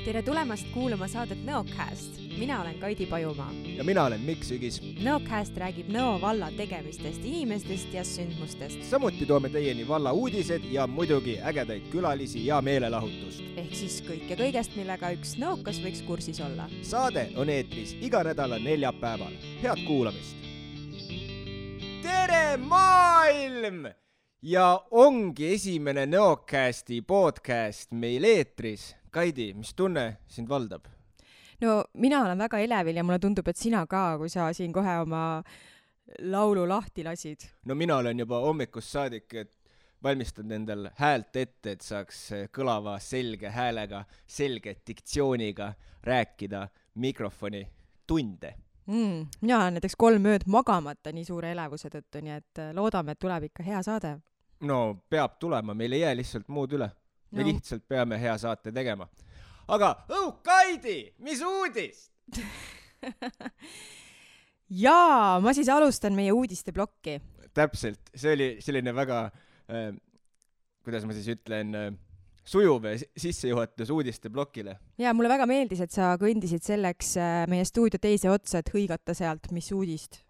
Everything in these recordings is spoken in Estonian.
Tere tulemast kuulama saadet Nõocast. Mina olen Kaidi Pajumaa. Ja mina olen Mikk Sügis. Nõocast räägib Nõo valla tegemistest, inimestest ja sündmustest. Samuti toome teieni valla uudised ja muidugi ägedaid külalisi ja meelelahutust. Ehk siis kõike kõigest, millega üks nõokas võiks kursis olla. Saade on eetris iga nädala neljapäeval. Head kuulamist! Tere maailm! Ja ongi esimene Nõocasti podcast meil eetris. Kaidi, mis tunne sind valdab? No mina olen väga elevil ja mulle tundub, et sina ka, kui sa siin kohe oma laulu lahti lasid. No mina olen juba hommikust saadik, et valmistad endal häält ette, et saaks kõlava selge häälega, selge diktsiooniga rääkida mikrofoni tunde. Mina olen näiteks 3 ööd magamata nii suure elevuse tõttu, nii et loodame, et tuleb ikka hea saade. No peab tulema, meil ei jää lihtsalt muud üle. Me lihtsalt peame hea saate tegema. Aga, Kaidi, mis uudist? Jaa, ma siis alustan meie uudiste blokki. Täpselt, see oli selline väga, kuidas ma siis ütlen, sujuv sissejuhatus uudiste blokile. Jaa, mulle väga meeldis, et sa kõndisid selleks meie stuudio teise otsa, et hõigata sealt, mis uudist.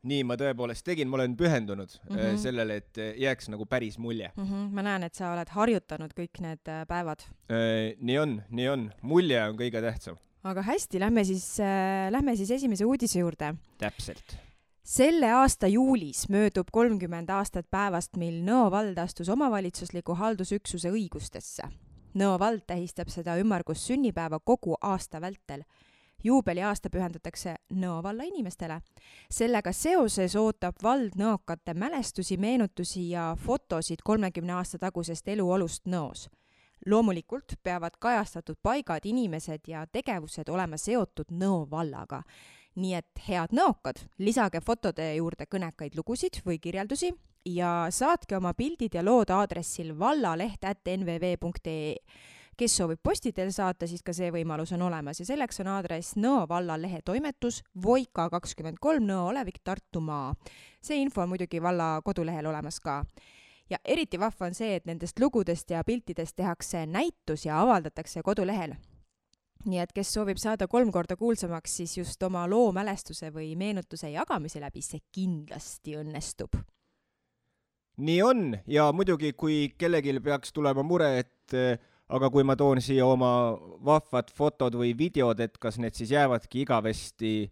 Nii ma tõepoolest tegin, ma olen pühendunud sellele, et jääks nagu päris mulje. Ma näen, et sa oled harjutanud kõik need päevad. Nii on. Mulje on kõige tähtsam. Aga hästi, lähme siis esimese uudise juurde. Täpselt. Selle aasta juulis möödub 30 aastat päevast, mil Nõo vald astus omavalitsusliku haldusüksuse õigustesse. Nõo vald tähistab seda ümmargus sünnipäeva kogu aasta vältel. Juubeli aasta pühendatakse Nõo valla inimestele. Sellega seoses ootab vald nõokate mälestusi, meenutusi ja fotosid 30 aasta tagusest eluolust Nõos. Loomulikult peavad kajastatud paigad, inimesed ja tegevused olema seotud Nõo vallaga. Nii et head nõokad, lisage fotode juurde kõnekaid lugusid või kirjeldusi ja saatke oma pildid ja lood aadressil vallaleht@nvv.ee. Kes soovib postidel saata, siis ka see võimalus on olemas ja selleks on aadress Nõo valla lehe toimetus Voika 23 Nõo olevik Tartumaa. See info on muidugi valla kodulehel olemas ka. Ja eriti vahva on see, et nendest lugudest ja piltidest tehakse näitus ja avaldatakse kodulehel. Nii et kes soovib saada 3 korda kuulsamaks, siis just oma loo mälestuse või meenutuse jagamise läbi see kindlasti õnnestub. Nii on ja muidugi, kui kellelgi peaks tulema mure, et aga kui ma toon siia oma vahvad fotod või videod, et kas need siis jäävadki igavesti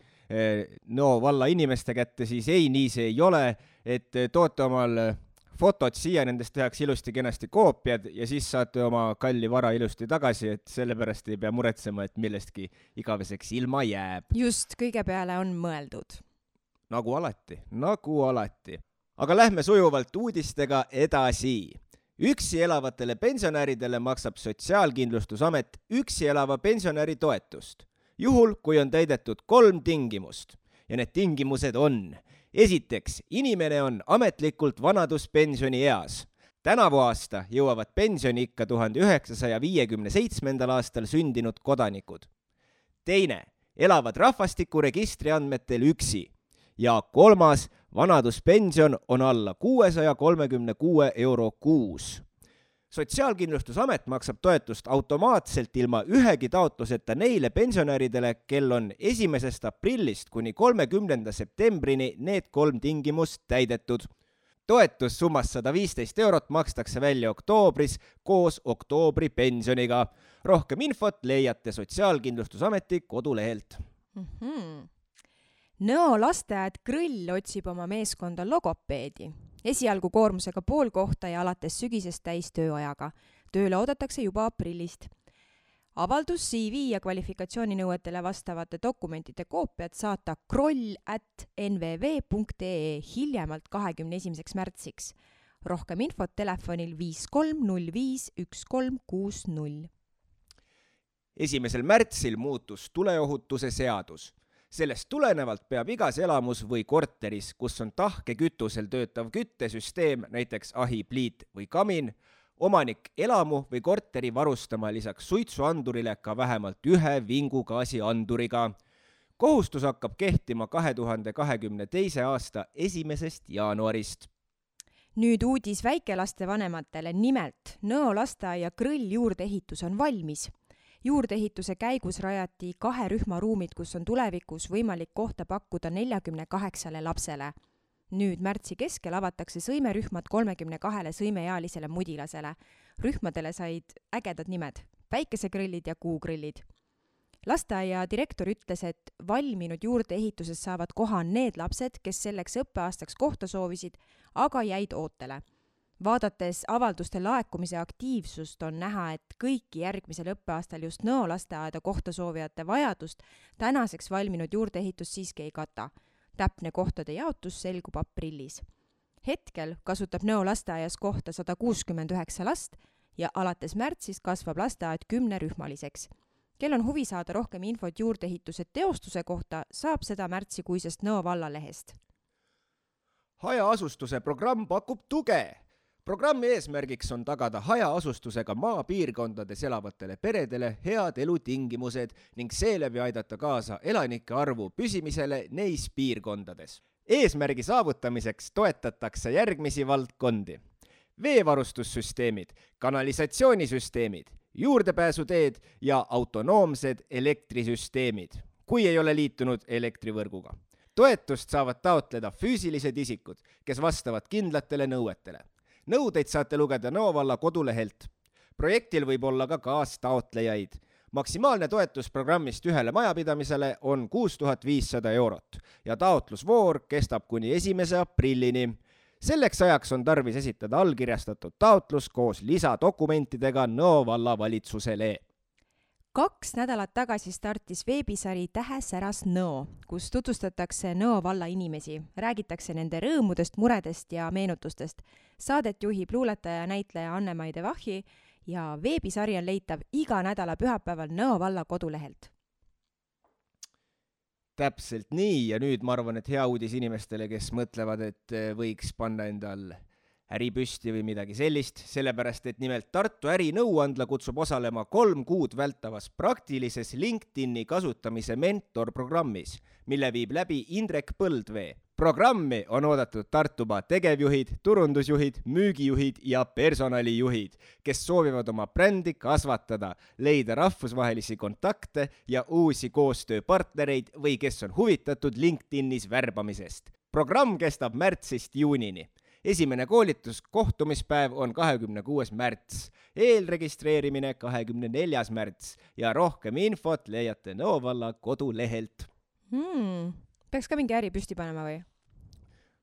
Nõo valla inimeste kätte, siis ei, nii see ei ole, et toote omal fotod siia, nendest tehakse ilusti kenasti koopiad ja siis saate oma kalli vara ilusti tagasi, et sellepärast ei pea muretsema, et millestki igaveseks ilma jääb. Just, kõige peale on mõeldud. Nagu alati. Aga lähme sujuvalt uudistega edasi. Üksi elavatele pensionäridele maksab Sotsiaalkindlustusamet üksi elava pensionäri toetust, juhul kui on täidetud 3 tingimust. Ja need tingimused on: esiteks, inimene on ametlikult vanaduspensioni eas. Tänavu aasta jõuavad pensioni ikka 1957. aastal sündinud kodanikud. Teine, elavad rahvastikuregistri andmetel üksi. Ja 3, vanaduspension on alla 636 euro kuus. Sotsiaalkindlustusamet maksab toetust automaatselt ilma ühegi taotluseta neile pensionäridele, kel on 1. aprillist kuni 30. septembrini need 3 tingimust täidetud. Toetus summas 115 eurot makstakse välja oktoobris koos oktoobri pensioniga. Rohkem infot leiate Sotsiaalkindlustusameti kodulehelt. Nõo lasteaed Krõll otsib oma meeskonda logopeedi. Esialgu koormusega pool kohta ja alates sügisest täis tööajaga. Tööle oodatakse juba aprillist. Avaldus CV ja kvalifikatsiooninõuetele vastavate dokumentide koopiad saata kroll@nvv.ee hiljemalt 21. märtsiks. Rohkem infot telefonil 5305 1360. 1. märtsil muutus tuleohutuse seadus. Sellest tulenevalt peab igas elamus või korteris, kus on tahkekütusel töötav küttesüsteem, näiteks ahi, pliit või kamin, omanik elamu või korteri varustama lisaks suitsuandurile ka vähemalt 1 vingugaasianduriga. Kohustus hakkab kehtima 2022. aasta 1. jaanuarist. Nüüd uudis väikelaste vanematele, nimelt Nõo lasteaia Krõll juurdeehitus on valmis. Juurdeehituse käigus rajati 2 rühmaruumid, kus on tulevikus võimalik kohta pakkuda 48 lapsele. Nüüd märtsi keskel avatakse sõimerühmad 32 sõimeealisele mudilasele. Rühmadele said ägedad nimed, päikesegrillid ja kuugrillid. Lasteaia direktor ütles, et valminud juurdeehituses saavad koha need lapsed, kes selleks õppeaastaks kohta soovisid, aga jäid ootele. Vaadates avalduste laekumise aktiivsust on näha, et kõiki järgmisel õppeaastal just Nõo lasteaeda kohta soovijate vajadust tänaseks valminud juurdeehitus siiski ei kata. Täpne kohtade jaotus selgub aprillis. Hetkel kasutab Nõo lasteaias kohta 169 last ja alates märtsis kasvab lasteaed 10-rühmaliseks. Kel on huvi saada rohkem infot juurdeehituse teostuse kohta, saab seda märtsikuisest Nõo vallalehest. Hajaasustuse programm pakub tuge. Programmi eesmärgiks on tagada hajaasustusega maapiirkondades elavatele peredele head elutingimused ning seeläbi aidata kaasa elanike arvu püsimisele neis piirkondades. Eesmärgi saavutamiseks toetatakse järgmisi valdkondi. Veevarustussüsteemid, kanalisatsioonisüsteemid, juurdepääsuteed ja autonoomsed elektrisüsteemid, kui ei ole liitunud elektrivõrguga. Toetust saavad taotleda füüsilised isikud, kes vastavad kindlatele nõuetele. Nõudeid saate lugeda Nõo valla kodulehelt. Projektil võib olla ka kaastaotlejaid. Maksimaalne toetus programmist ühele majapidamisele on 6500 eurot ja taotlusvoor kestab kuni 1. aprillini. Selleks ajaks on tarvis esitada allkirjastatud taotlus koos lisadokumentidega Nõo valla valitsusele. 2 nädalat tagasi startis veebisari Tähesäras Nõo, kus tutvustatakse Nõo valla inimesi, räägitakse nende rõõmudest, muredest ja meenutustest. Saadet juhib luuletaja ja näitleja Anne-Mai de Vahi ja veebisari on leitav iga nädala pühapäeval Nõo valla kodulehelt. Täpselt nii ja nüüd ma arvan, et hea uudis inimestele, kes mõtlevad, et võiks panna endal äripüsti või midagi sellist, sellepärast et nimelt Tartu ärinõuandla kutsub osalema 3 kuud vältavas praktilises LinkedIni kasutamise mentorprogrammis, mille viib läbi Indrek Põldvee. Programmi on oodatud Tartumaa tegevjuhid, turundusjuhid, müügijuhid ja personalijuhid, kes soovivad oma brändi kasvatada, leida rahvusvahelisi kontakte ja uusi koostööpartnereid või kes on huvitatud LinkedInis värbamisest. Programm kestab märtsist juunini. Esimene koolituskohtumispäev on 26. märts, eelregistreerimine 24. märts ja rohkem infot leiate Nõo valla kodulehelt. Peaks ka mingi äri püsti panema või?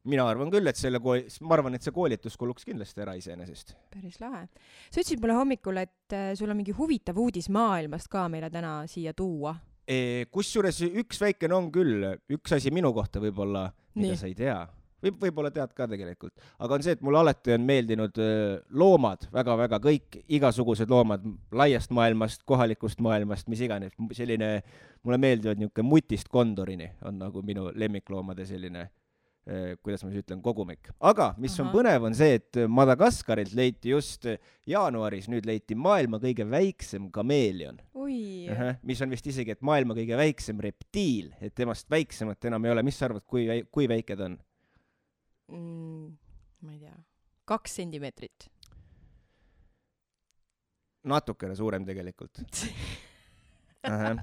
Mina arvan küll, et see koolitus kuluks kindlasti ära iseenesest. Päris lahe. Sa ütlesid mulle hommikul, et sul on mingi huvitav uudis maailmast ka meile täna siia tuua. Kusjuures üks väikene on küll, üks asi minu kohta võib-olla, mida sa ei tea. Võib-olla tead ka tegelikult. Aga on see, et mulle alati on meeldinud loomad, väga-väga kõik, igasugused loomad laiast maailmast, kohalikust maailmast, mis iganes. Selline, mulle meeldivad niisugune mutist kondorini on nagu minu lemmikloomade selline, kuidas ma siis ütlen, kogumik. Aga mis on põnev on see, et Madagaskarilt leiti just jaanuaris, nüüd leiti maailma kõige väiksem kameelion. Mis on vist isegi, et maailma kõige väiksem reptiil, et temast väiksemat enam ei ole. Mis sa arvad, kui väike ta on? Ma ei tea, 2 sentimeetrit. Natukene suurem tegelikult.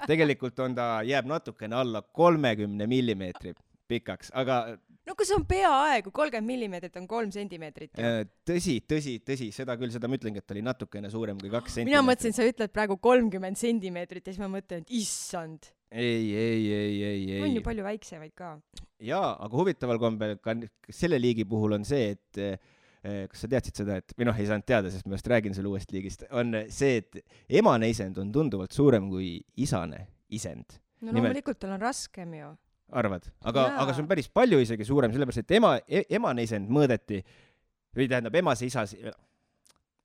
Tegelikult jääb natukene alla 30 millimeetri pikaks, aga... No kui see on peaaegu 30 millimeetrit on 3 sentimeetrit. Tõsi, seda ma ütlengi, et oli natukene suurem kui 2 sentimeetrit. Mina mõtlesin, sa ütled praegu 30 sentimeetrit ja siis ma mõtlen, et issand. Ei. On ju palju väiksemaid ka. Jaa, aga huvitaval kombel ka selle liigi puhul on see, et kas sa teadsid seda, et või ei saanud teada, sest ma just räägin selle uuest liigist, on see, et emane isend on tunduvalt suurem kui isane isend. No loomulikult tal on raskem ju. Arvad? Aga see on päris palju isegi suurem, sellepärast, et emane isend mõõdeti, või tähendab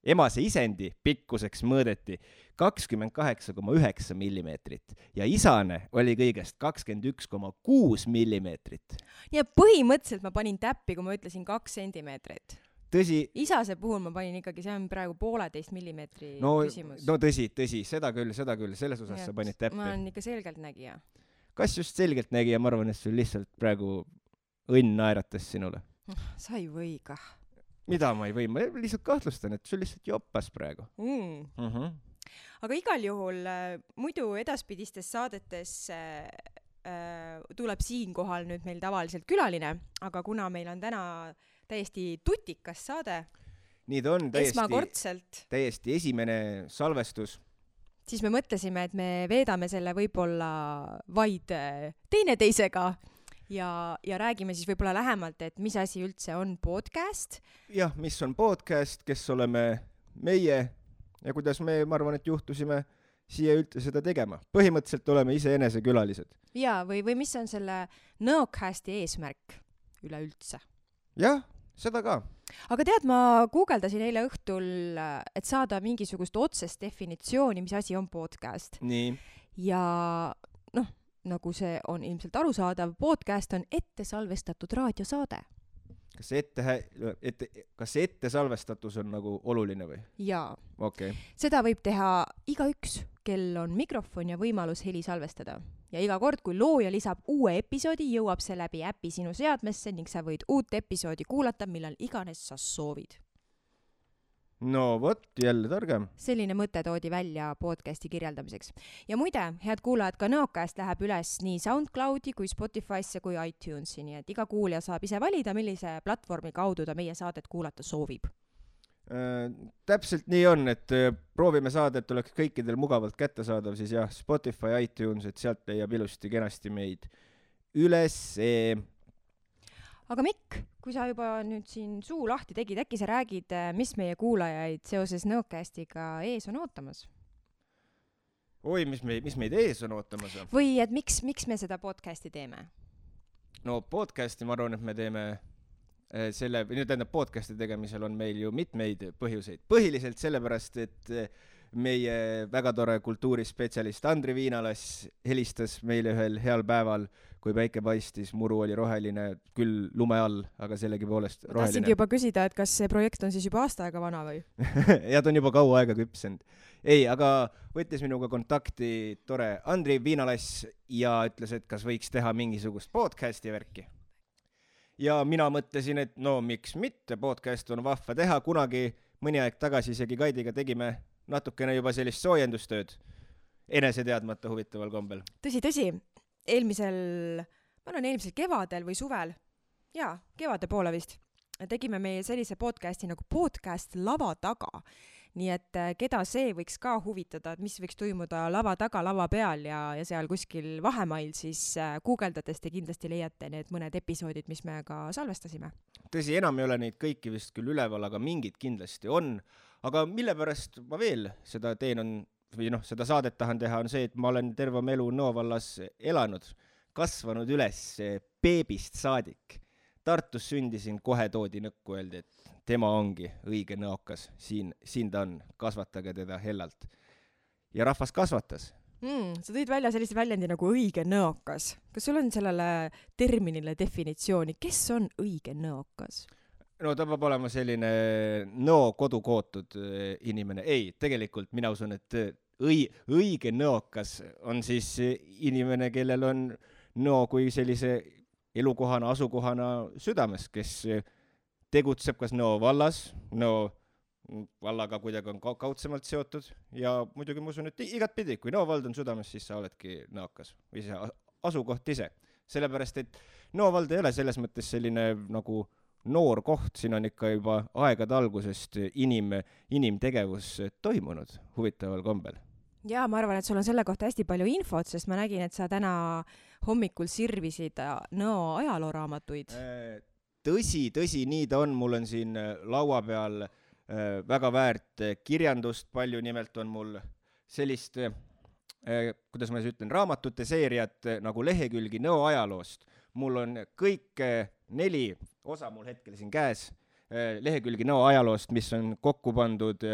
emase isendi pikkuseks mõõdeti 28,9 millimeetrit ja isane oli kõigest 21,6 millimeetrit. Ja põhimõtteliselt ma panin täppi, kui ma ütlesin 2 sentimeetrit. Tõsi. Isase puhul ma panin ikkagi, see on praegu 1,5 millimeetri küsimus. No tõsi, seda küll, selles osas sa panid täppi. Ma olen ikka selgeltnägija. Kas just selgeltnägija, ma arvan, et sul lihtsalt praegu õnn naeratas sinule. Sa ei või kah. Mida ma ei või? Ma lihtsalt kahtlustan, et sul lihtsalt joppas praegu. aga igal juhul muidu edaspidistes saadetes tuleb siinkohal nüüd meil tavaliselt külaline, aga kuna meil on täna täiesti tutikas saade, nii ta on esmakordselt, täiesti esimene salvestus, siis me mõtlesime, et me veedame selle võib-olla vaid teineteisega ja räägime siis võib-olla lähemalt, et mis asi üldse on podcast. Jah, mis on podcast, kes oleme meie ja kuidas me, ma arvan, et juhtusime siia üldse seda tegema. Põhimõtteliselt oleme iseenese külalised. Ja, või mis on selle Nõocasti eesmärk üleüldse? Jah, seda ka. Aga tead, ma guugeldasin eile õhtul, et saada mingisugust otsest definitsiooni, mis asi on podcast. Nii. Ja nagu see on ilmselt arusaadav, podcast on ette salvestatud raadiosaade. Kas see ette salvestatus on nagu oluline või? Jaa. Okay. Seda võib teha igaüks, kel on mikrofon ja võimalus heli salvestada. Ja iga kord, kui looja lisab uue episoodi, jõuab see läbi äpi sinu seadmesse ning sa võid uut episoodi kuulata, millal iganes sa soovid. No vot, jälle targem. Selline mõte toodi välja podcasti kirjeldamiseks. Ja muide, head kuulajad, ka Nõocast läheb üles nii SoundCloudi kui Spotify'sse kui iTunesi, nii et iga kuulja saab ise valida, millise platvormi kaudu ta meie saadet kuulata soovib. Täpselt nii on, et proovime saada, et oleks kõikidel mugavalt kättesaadav, siis jah, Spotify, iTunes, et sealt leiab ilusti kenasti meid üles. Aga Mikk, kui sa juba nüüd siin suu lahti tegid, äkki sa räägid, mis meie kuulajaid seoses Nõocastiga ees on ootamas? Oi, mis meid ees on ootamas? Või et miks me seda podcasti teeme? No podcasti ma arvan, et me teeme podcasti tegemisel on meil ju mitmeid põhjuseid. Põhiliselt sellepärast, et meie väga tore kultuurispetsialist Andri Viinalas helistas meile ühel heal päeval, kui päike paistis, muru oli roheline, küll lume all, aga sellegipoolest roheline. Tahtsingi juba küsida, et kas see projekt on siis juba aasta aega vana või? Ja ta on juba kaua aega küpsenud. Ei, aga võttis minuga kontakti tore Andri Viinalas ja ütles, et kas võiks teha mingisugust podcasti värki. Ja mina mõtlesin, et no miks mitte, podcast on vahva teha, kunagi mõni aeg tagasi isegi Kaidiga tegime natukene juba sellist soojendustööd enese teadmata huvitaval kombel. Tõsi, eelmisel kevadel või suvel, kevade poole vist, tegime meie sellise podcasti nagu podcast lava taga. Nii et keda see võiks ka huvitada, et mis võiks toimuda lava taga, lava peal ja seal kuskil vahemail, siis guugeldades te kindlasti leiate need mõned episoodid, mis me ka salvestasime. Tõsi, enam ei ole neid kõiki vist küll üleval, aga mingid kindlasti on. Aga mille pärast ma veel seda teen seda saadet tahan teha, on see, et ma olen terve elu Nõo vallas elanud, kasvanud üles beebist saadik. Tartus sündisin, kohe toodi nõkku, öeldi, et tema ongi õige nõokas, siin ta on, kasvatage teda hellalt. Ja rahvas kasvatas. Sa tõid välja sellise väljendi nagu õige nõokas. Kas sul on sellele terminile definitsiooni, kes on õige nõokas? No ta peab olema selline nõo kodukootud inimene. Ei, tegelikult mina usun, et õige nõokas on siis inimene, kellel on nõo kui sellise elukohana, asukohana südames, kes tegutseb kas Nõo vallas, Nõo vallaga kuidagi on kaudsemalt seotud ja muidugi ma usun, et igat pidi, kui Nõo vald on südames, siis sa oledki nõokas või see asukoht ise. Sellepärast, et Nõo vald ei ole selles mõttes selline nagu noor koht, siin on ikka juba aegade algusest inimtegevus toimunud huvitaval kombel. Ja ma arvan, et sul on selle kohta hästi palju infot, sest ma nägin, et sa täna hommikul sirvisid Nõo ajalooraamatuid. Tõsi, nii ta on. Mul on siin laua peal väga väärt kirjandust palju, nimelt on mul sellist, kuidas ma ütlen, raamatute seeriat nagu lehekülgi Nõo ajaloost. Mul on kõik 4 osa mul hetkel siin käes, lehekülgi Nõo ajaloost, mis on kokku pandud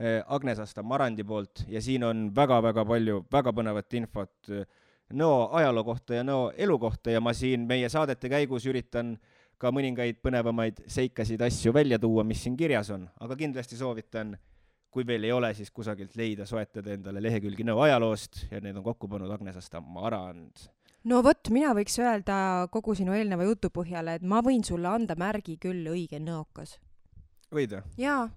Agnes Asta Marandi poolt ja siin on väga-väga palju väga põnevat infot Nõo ajaloo kohta ja Nõo elu kohta ja ma siin meie saadete käigus üritan ka mõningaid põnevamaid seikasid asju välja tuua, mis siin kirjas on, aga kindlasti soovitan, kui veel ei ole, siis kusagilt leida, soetada endale lehekülgi Nõo ajaloost ja need on kokku pannud Agnes Asta Marand. No vot, mina võiks öelda kogu sinu eelneva jutu põhjale, et ma võin sulle anda märgi küll õige nõokas. võid või? jaa.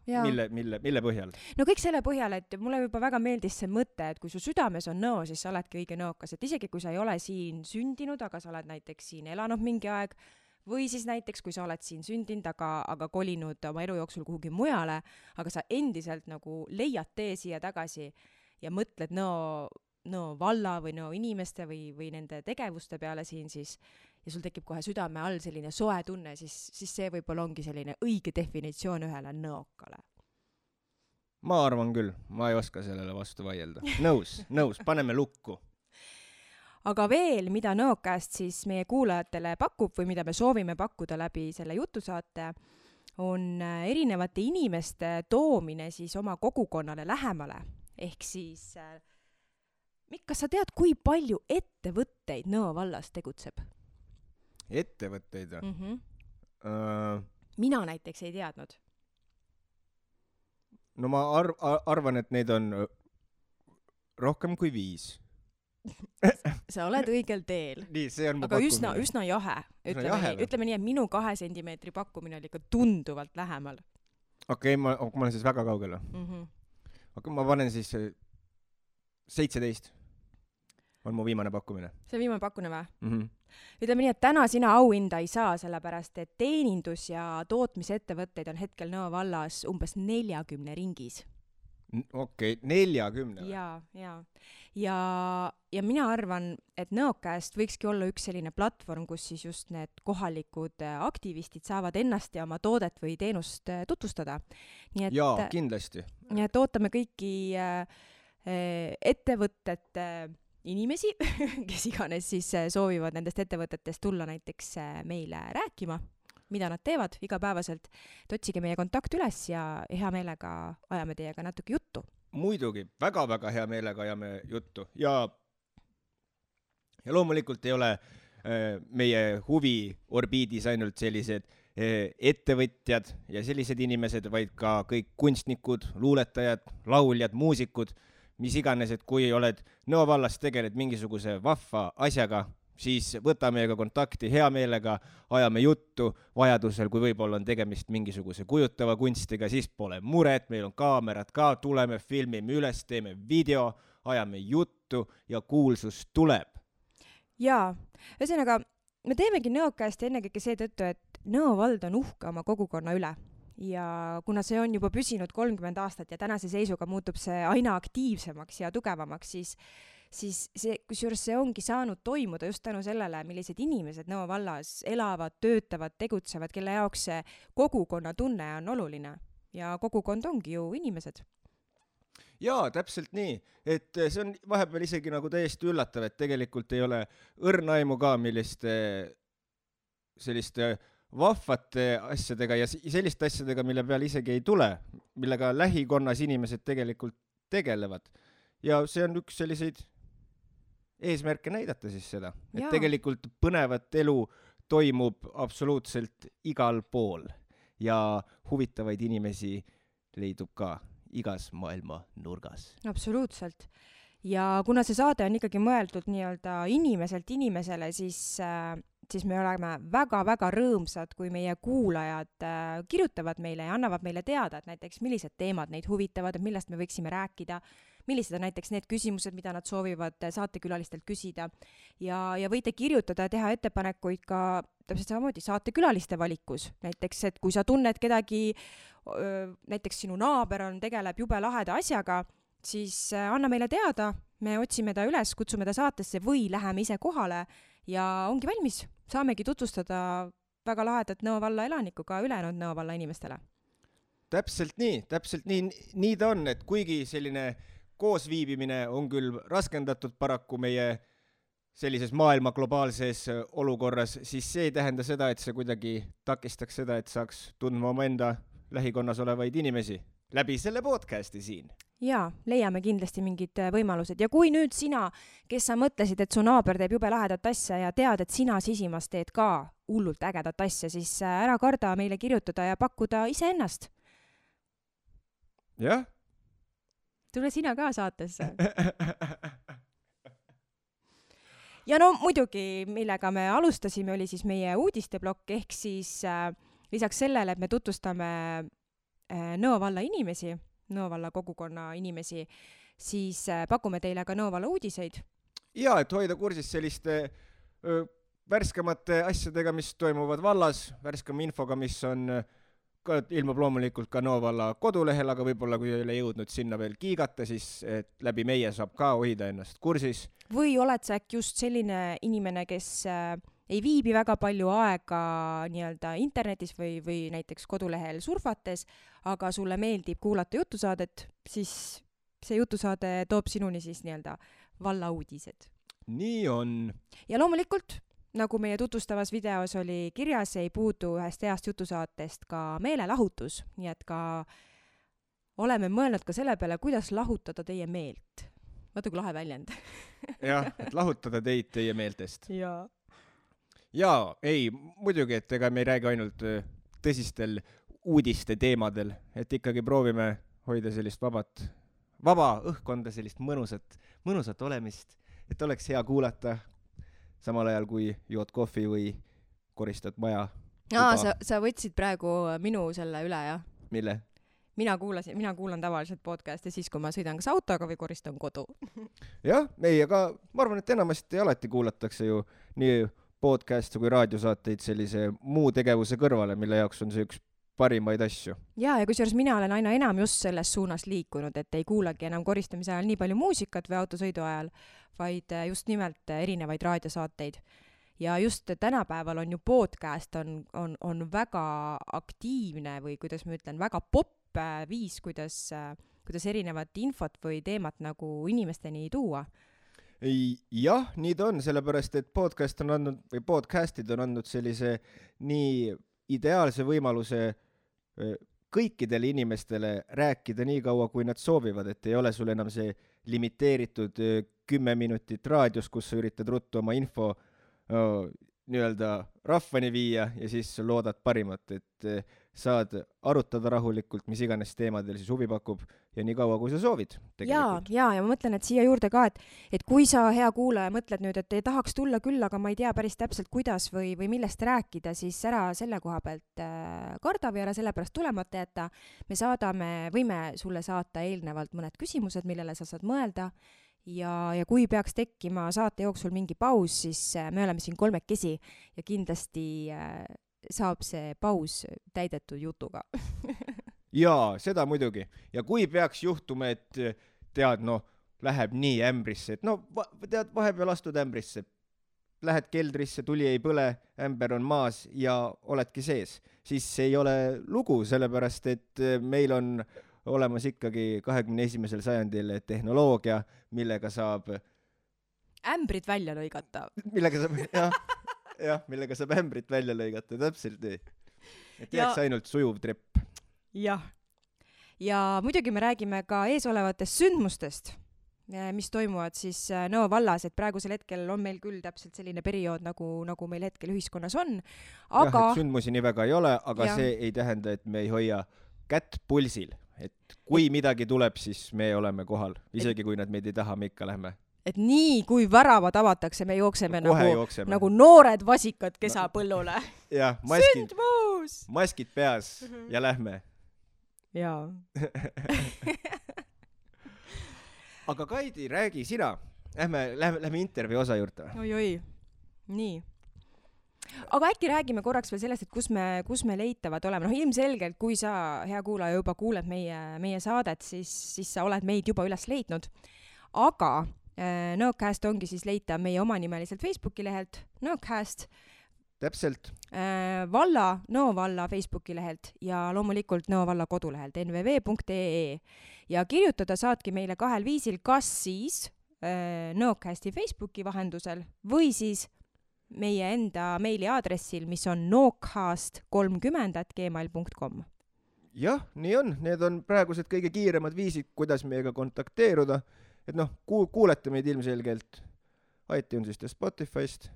Mille põhjal? No kõik selle põhjal, et mulle juba väga meeldis see mõte, et kui su südames on nõo, siis sa oledki õige nõokas, et isegi kui sa ei ole siin sündinud, aga sa oled näiteks siin elanud mingi aeg, või siis näiteks, kui sa oled siin sündinud, aga kolinud oma elu jooksul kuhugi mujale, aga sa endiselt nagu leiad tee siia tagasi ja mõtled Nõo valla või Nõo inimeste või nende tegevuste peale siin siis, ja sul tekib kohe südame all selline soe tunne, siis see võib-olla ongi selline õige definitsioon ühele nõokale. Ma arvan küll, ma ei oska sellele vastu vaielda. Nõus, paneme lukku. Aga veel, mida Nõokast siis meie kuulajatele pakub või mida me soovime pakkuda läbi selle jutusaate, on erinevate inimeste toomine siis oma kogukonnale lähemale. Ehk siis, kas sa tead, kui palju ettevõtteid Nõo vallas tegutseb? Ettevõtteid? Mina näiteks ei teadnud. No ma arvan, et neid on rohkem kui 5. Sa oled õigel teel. Nii, see on mu aga pakkumine. üsna jahe. Ütleme nii, et minu 2 sentimeetri pakkumine oli ikka tunduvalt lähemal. Okei, ma olen siis väga kaugele. Okei, ma panen siis 17. On mu viimane pakkumine. See viimane pakkumine või? Ütleme nii, et täna sina auhinda ei saa, sellepärast et teenindus- ja tootmisettevõtteid on hetkel Nõo vallas umbes 40 ringis. Okei, 40. Ja mina arvan, et Nõokast võikski olla üks selline platvorm, kus siis just need kohalikud aktivistid saavad ennast ja oma toodet või teenust tutvustada. Jaa, kindlasti. Nii et ootame kõiki ettevõtete inimesi, kes iganes siis soovivad nendest ettevõtetest tulla näiteks meile rääkima, mida nad teevad igapäevaselt, et otsige meie kontakt üles ja hea meelega ajame teiega natuke juttu. Muidugi, väga-väga hea meelega ajame juttu ja loomulikult ei ole meie huviorbiidis ainult sellised ettevõtjad ja sellised inimesed, vaid ka kõik kunstnikud, luuletajad, lauljad, muusikud, mis iganes, et kui oled Nõo vallas tegeled mingisuguse vahva asjaga, siis võta meiega kontakti hea meelega, ajame juttu, vajadusel, kui võib-olla on tegemist mingisuguse kujutava kunstiga, siis pole muret, meil on kaamerad ka, tuleme, filmime üles, teeme video, ajame juttu ja kuulsus tuleb. Jaa, ühesõnaga, me teemegi Nõokast ennekõike seetõttu, et Nõo vald on uhke oma kogukonna üle. Ja kuna see on juba püsinud 30 aastat ja tänase seisuga muutub see aina aktiivsemaks ja tugevamaks, siis kusjuures see ongi saanud toimuda just tänu sellele, millised inimesed Nõo vallas elavad, töötavad, tegutsevad, kelle jaoks see kogukonna tunne on oluline. Ja kogukond ongi ju inimesed. Jaa, täpselt nii, et see on vahepeal isegi nagu täiesti üllatav, et tegelikult ei ole õrnaimu ka, selliste vahvate asjadega ja selliste asjadega, mille peal isegi ei tule, millega lähikonnas inimesed tegelikult tegelevad. Ja see on üks selliseid eesmärke näidata siis seda, et tegelikult põnevat elu toimub absoluutselt igal pool ja huvitavaid inimesi leidub ka igas maailma nurgas. Absoluutselt. Ja kuna see saade on ikkagi mõeldud nii-öelda inimeselt inimesele, siis me oleme väga-väga rõõmsad, kui meie kuulajad kirjutavad meile ja annavad meile teada, et näiteks millised teemad neid huvitavad, et millest me võiksime rääkida, millised on näiteks need küsimused, mida nad soovivad saatekülalistelt küsida. Ja võite kirjutada ja teha ettepanekuid ka täpselt samamoodi saatekülaliste valikus. Näiteks, et kui sa tunned kedagi, näiteks sinu naaber tegeleb jube laheda asjaga, siis anna meile teada, me otsime ta üles, kutsume ta saatesse või läheme ise kohale ja ongi valmis. Saamegi tutvustada väga lahedat Nõo valla elanikku ka ülejäänud Nõo valla inimestele. Täpselt nii. Nii ta on, et kuigi selline koosviibimine on küll raskendatud paraku meie sellises maailma globaalses olukorras, siis see ei tähenda seda, et see kuidagi takistaks seda, et saaks tundma oma enda lähikonnas olevaid inimesi läbi selle podcasti siin. Jaa, leiame kindlasti mingid võimalused. Ja kui nüüd sina, kes sa mõtlesid, et su naaber teeb jube lahedat asja ja tead, et sina sisimas teed ka hullult ägedat asja, siis ära karda meile kirjutada ja pakkuda iseennast. Jah? Tule sina ka saatesse. Ja no muidugi, millega me alustasime, oli siis meie uudisteblokk, ehk siis lisaks sellele, et me tutvustame Nõo valla inimesi, Nõo valla kogukonna inimesi, siis pakume teile ka Nõo valla uudiseid. Ja, et hoida kursis selliste värskemate asjadega, mis toimuvad vallas, värskema infoga, mis on ilmub loomulikult ka Nõo valla kodulehel, aga võib-olla kui ei ole jõudnud sinna veel kiigata, siis et läbi meie saab ka hoida ennast kursis. Või oled sa äkki just selline inimene, kes ei viibi väga palju aega nii-öelda internetis või näiteks kodulehel surfates, aga sulle meeldib kuulata jutusaadet, siis see jutusaade toob sinuni siis nii-öelda valla uudised. Nii on. Ja loomulikult, nagu meie tutvustavas videos oli kirjas, ei puudu ühest heast jutusaatest ka meelelahutus, nii et ka oleme mõelnud ka selle peale, kuidas lahutada teie meelt. Vaata kui lahe väljend. Jah, et lahutada teid teie meeltest. Ja, ei, muidugi, et ega me ei räägi ainult tõsistel uudiste teemadel, et ikkagi proovime hoida sellist vaba õhkkonda, sellist mõnusat olemist, et oleks hea kuulata samal ajal, kui jood kohvi või koristad maja. Sa võtsid praegu minu selle üle, jah? Mille? Mina kuulan tavaliselt podcasti siis, kui ma sõidan kas autoga või koristan kodu. Jah, ei, aga ma arvan, et enamasti alati kuulatakse ju nii podcasti kui raadiosaateid sellise muu tegevuse kõrvale, mille jaoks on see üks parimaid asju. Ja kusjuures mina olen aina enam just selles suunas liikunud, et ei kuulagi enam koristamise ajal nii palju muusikat või autosõidu ajal, vaid just nimelt erinevaid raadiosaateid. Ja just tänapäeval on ju podcast on väga aktiivne või kuidas ma ütlen, väga popp viis, kuidas erinevat infot või teemat nagu inimesteni tuua. Jah, nii ta on, sellepärast, et podcastid on andnud sellise nii ideaalse võimaluse kõikidele inimestele rääkida nii kaua, kui nad soovivad, et ei ole sul enam see limiteeritud 10 minutit raadios, kus sa üritad ruttu oma info nii-öelda rahvani viia ja siis loodad parimat, et saad arutada rahulikult, mis iganes teemadel siis huvi pakub ja nii kaua, kui sa soovid. Ja ma mõtlen, et siia juurde ka, et kui sa, hea kuulaja, mõtled nüüd, et ei tahaks tulla küll, aga ma ei tea päris täpselt, kuidas või millest rääkida, siis ära selle koha pealt karda või ära sellepärast tulemata jätta. Me võime sulle saata eelnevalt mõned küsimused, millele sa saad mõelda. Ja kui peaks tekkima saate jooksul mingi paus, siis me oleme siin kolmekesi ja kindlasti saab see paus täidetud jutuga. Jaa, seda muidugi. Ja kui peaks juhtuma, et tead, läheb nii ämbrisse, et tead, vahepeal astud ämbrisse, lähed keldrisse, tuli ei põle, ämber on maas ja oledki sees, siis see ei ole lugu, sellepärast, et meil on olemas ikkagi 21. sajandil tehnoloogia, millega saab ämbrit välja lõigata. Millega saab ämbrit välja lõigata, täpselt nii. Et jääks ainult sujuv trepp. Jah. Ja muidugi me räägime ka eesolevatest sündmustest, mis toimuvad siis Nõo vallas, et praegusel hetkel on meil küll täpselt selline periood, nagu meil hetkel ühiskonnas on. Aga... et sündmusi nii väga ei ole, aga see ei tähenda, et me ei hoia kätt pulsil. Et kui midagi tuleb, siis me oleme kohal. Isegi kui nad meid ei taha, me ikka lähme. Et nii, kui väravad avatakse, me jookseme nagu noored vasikad kesapõllule. Jah, maskid peas ja lähme. Jaa. Aga Kaidi, räägi sina. Lähme intervjuu osa juurde. Oi, nii. Aga äkki räägime korraks veel sellest, et kus me leitavad oleme. Ilmselgelt, kui sa, hea kuulaja, juba kuuled meie saadet, siis sa oled meid juba üles leidnud. Aga Nõocast ongi siis leita meie omanimeliselt Facebooki lehelt Nõocast. Täpselt. Nõo valla Facebooki lehelt ja loomulikult Nõo valla kodulehelt nvv.ee. Ja kirjutada saadki meile 2 viisil, kas siis Nõocasti Facebooki vahendusel või siis meie enda meiliaadressil, mis on noocast30@gmail.com. Jah, nii on. Need on praegused kõige kiiremad viisid, kuidas meiega kontakteeruda. Et kuulete meid ilmselgelt iTunesist ja Spotifyst.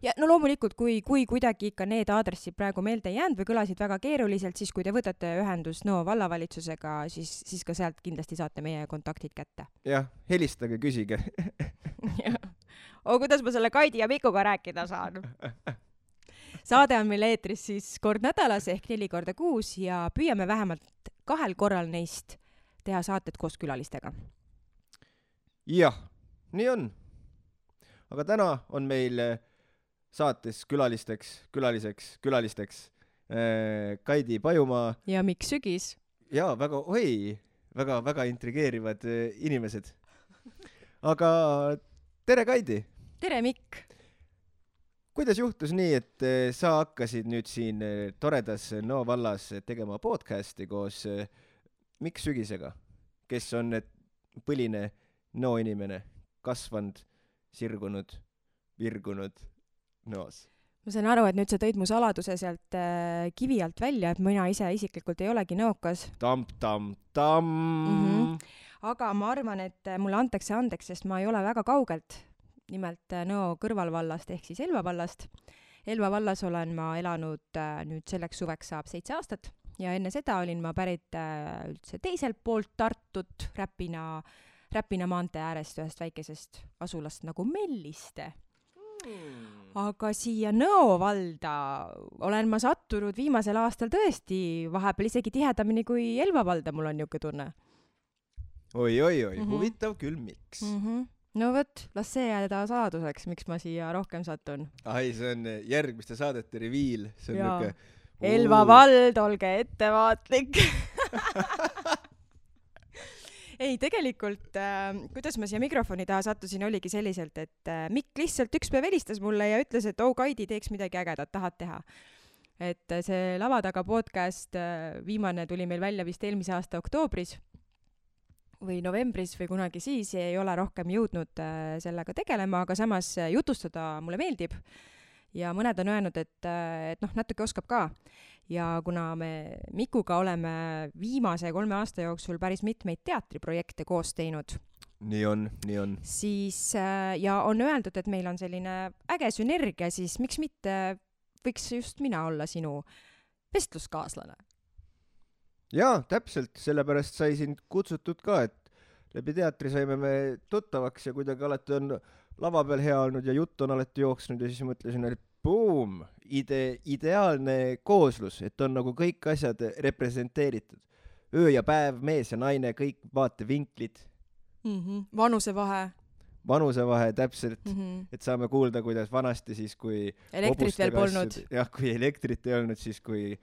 Ja loomulikult, kui kuidagi ikka need aadressid praegu meelde ei jäänud või kõlasid väga keeruliselt, siis kui te võtate ühendust Nõo vallavalitsusega, siis ka sealt kindlasti saate meie kontaktid kätte. Jah, helistage, küsige. Kuidas ma selle Kaidi ja Mikuga rääkida saan? Saade on meil eetris siis kord nädalas ehk 4 korda kuus ja püüame vähemalt 2 korral neist teha saated koos külalistega. Jah, nii on. Aga täna on meil saates külaliseks Kaidi Pajumaa. Ja Mikk Sügis. Ja, väga intrigeerivad inimesed. Aga tere, Kaidi! Tere, Mikk! Kuidas juhtus nii, et sa hakkasid nüüd siin toredas Nõo vallas tegema podcasti koos Mikk Sügisega, kes on põline Nõo inimene, kasvanud, sirgunud, virgunud Nõos? Ma saan aru, et nüüd sa tõid mu saladuse sealt kivi alt välja, et mina ise isiklikult ei olegi nõokas. Tam. Aga ma arvan, et mulle antakse andeks, sest ma ei ole väga kaugelt. Nimelt Nõo kõrvalvallast ehk siis Elva vallast. Elva vallas olen ma elanud nüüd selleks suveks saab 7 aastat ja enne seda olin ma pärit üldse teiselt poolt Tartut, Räpina maantee äärest ühest väikesest asulast nagu Melliste. Aga siia Nõo valda olen ma sattunud viimasel aastal tõesti vahepeal isegi tihedamini kui Elva valda, mul on niuke tunne. Oi, huvitav küll, miks? No võt, las see jääda saladuseks, miks ma siia rohkem satun. Ai, see on järgmiste saadete reviil. See on niuke... Elva vald, olge ettevaatlik. Ei, tegelikult, kuidas ma siia mikrofoni taha sattusin, oligi selliselt, et Mikk lihtsalt üks päev helistas mulle ja ütles, et Kaidi, teeks midagi ägedat, tahad teha. Et see Lava taga podcast viimane tuli meil välja vist eelmise aasta oktoobris või novembris või kunagi siis, ei ole rohkem jõudnud sellega tegelema, aga samas jutustada mulle meeldib. Ja mõned on öelnud, et natuke oskab ka. Ja kuna me Mikuga oleme viimase 3 aasta jooksul päris mitmeid teatriprojekte koos teinud. Nii on. Siis, ja on öeldud, et meil on selline äge sünergia, siis miks mitte võiks just mina olla sinu vestluskaaslane? Jaa, täpselt, sellepärast sai sind kutsutud ka, et läbi teatri saime me tuttavaks ja kuidagi alati on lava peal hea olnud ja jutt on alati jooksnud ja siis mõtlesin, et boom, ideaalne kooslus, et on nagu kõik asjad representeeritud. Öö ja päev, mees ja naine, kõik vaatevinklid. Vanusevahe, täpselt, et saame kuulda, kuidas vanasti siis, kui elektrit veel polnud. Jah, kui elektrit ei olnud, siis kui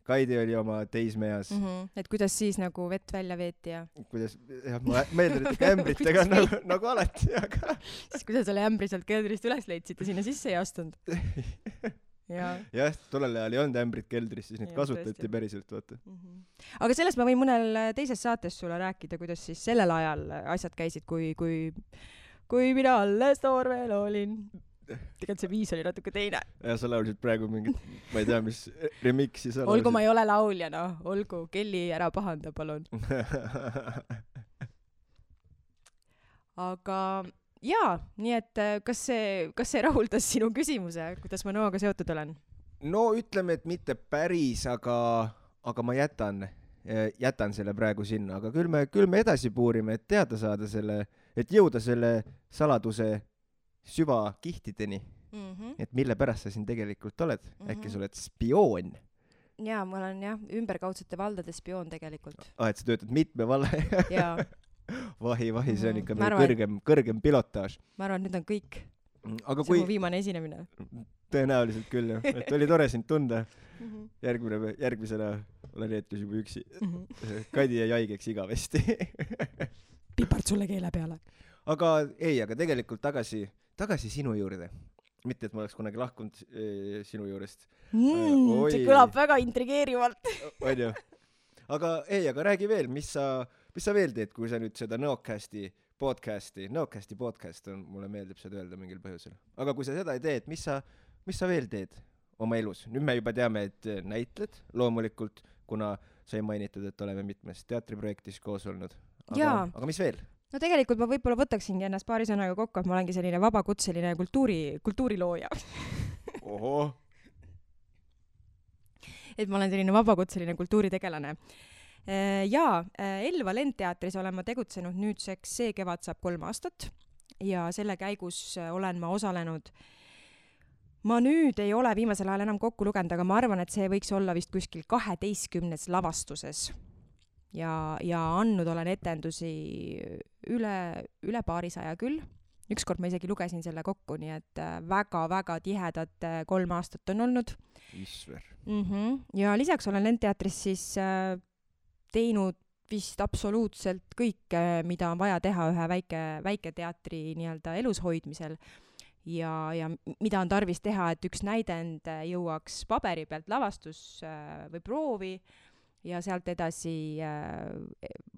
Kaidi oli oma teismeas. Et kuidas siis nagu vett välja veeti ja... Kuidas, jah, ma meeldin, et ämbritega nagu alati, aga... Siis kuidas selle ämbri sealt keldrist üles leidsid ja sinna sisse ei astunud? Jah, tollel ajal ei olnud ämbrit keldris, siis neid kasutati päriselt, vaata. Aga sellest ma võin mõnel teises saates sulle rääkida, kuidas siis sellel ajal asjad käisid, kui mina alles noor veel olin. Tegelikult see viis oli natuke teine. Ja sa laulsid praegu mingit, ma ei tea, mis remixi sa laulsid. Olgu ma ei ole laulja, olgu, Kelly ära pahanda, palun. Aga jaa, nii et kas see rahuldas sinu küsimuse, kuidas ma Nõoga seotud olen? No ütleme, et mitte päris, aga ma jätan selle praegu sinna, aga küll me edasi puurime, et teada saada selle, et jõuda selle saladuse süva kihtideni, et mille pärast sa siin tegelikult oled. Äkki sa oled spioon? Jaa, ma olen ümberkaudsete valdade spioon tegelikult. Et sa töötad mitme valla? Jaa. Vahi, see on ikka meil kõrgem pilotaaž. Ma arvan, nüüd on kõik. Aga see on mu viimane esinemine. Tõenäoliselt küll, jah. Et oli tore sind tunda. Järgmisena olen jätkus juba üksi. Kaidi jäi haigeks igavesti. Pipart sulle keele peale. Aga tegelikult tagasi sinu juurde. Mitte, et ma oleks kunagi lahkunud sinu juurest. See kõlab väga intrigeerivalt. On ju. Aga räägi veel, mis sa veel teed, kui sa nüüd seda Nõocasti podcast on, mulle meeldib seda öelda mingil põhjusel. Aga kui sa seda ei teed, mis sa veel teed oma elus? Nüüd me juba teame, et näitled loomulikult, kuna sai mainitud, et oleme mitmes teatriprojektis koos olnud. Aga mis veel? No tegelikult ma võib-olla võtaksingi ennast paari sõnaga kokku, et ma olengi selline vabakutseline kultuurilooja. Oho. Et ma olen selline vabakutseline kultuuritegelane. Elva Lendteatris olen ma tegutsenud nüüdseks, see kevad saab 3 aastat ja selle käigus olen ma osalenud. Ma nüüd ei ole viimasel ajal enam kokku lugenud, aga ma arvan, et see võiks olla vist kuskil 12 lavastuses. ja andnud olen etendusi üle paarisaja küll. Ükskord ma isegi lugesin selle kokku, nii et väga-väga tihedad 3 aastat on olnud. Isver. Ja lisaks olen Lendteatris siis teinud vist absoluutselt kõike, mida on vaja teha ühe väike teatri nii-öelda elus hoidmisel ja mida on tarvis teha, et üks näidend jõuaks paberi pealt lavastus või proovi ja sealt edasi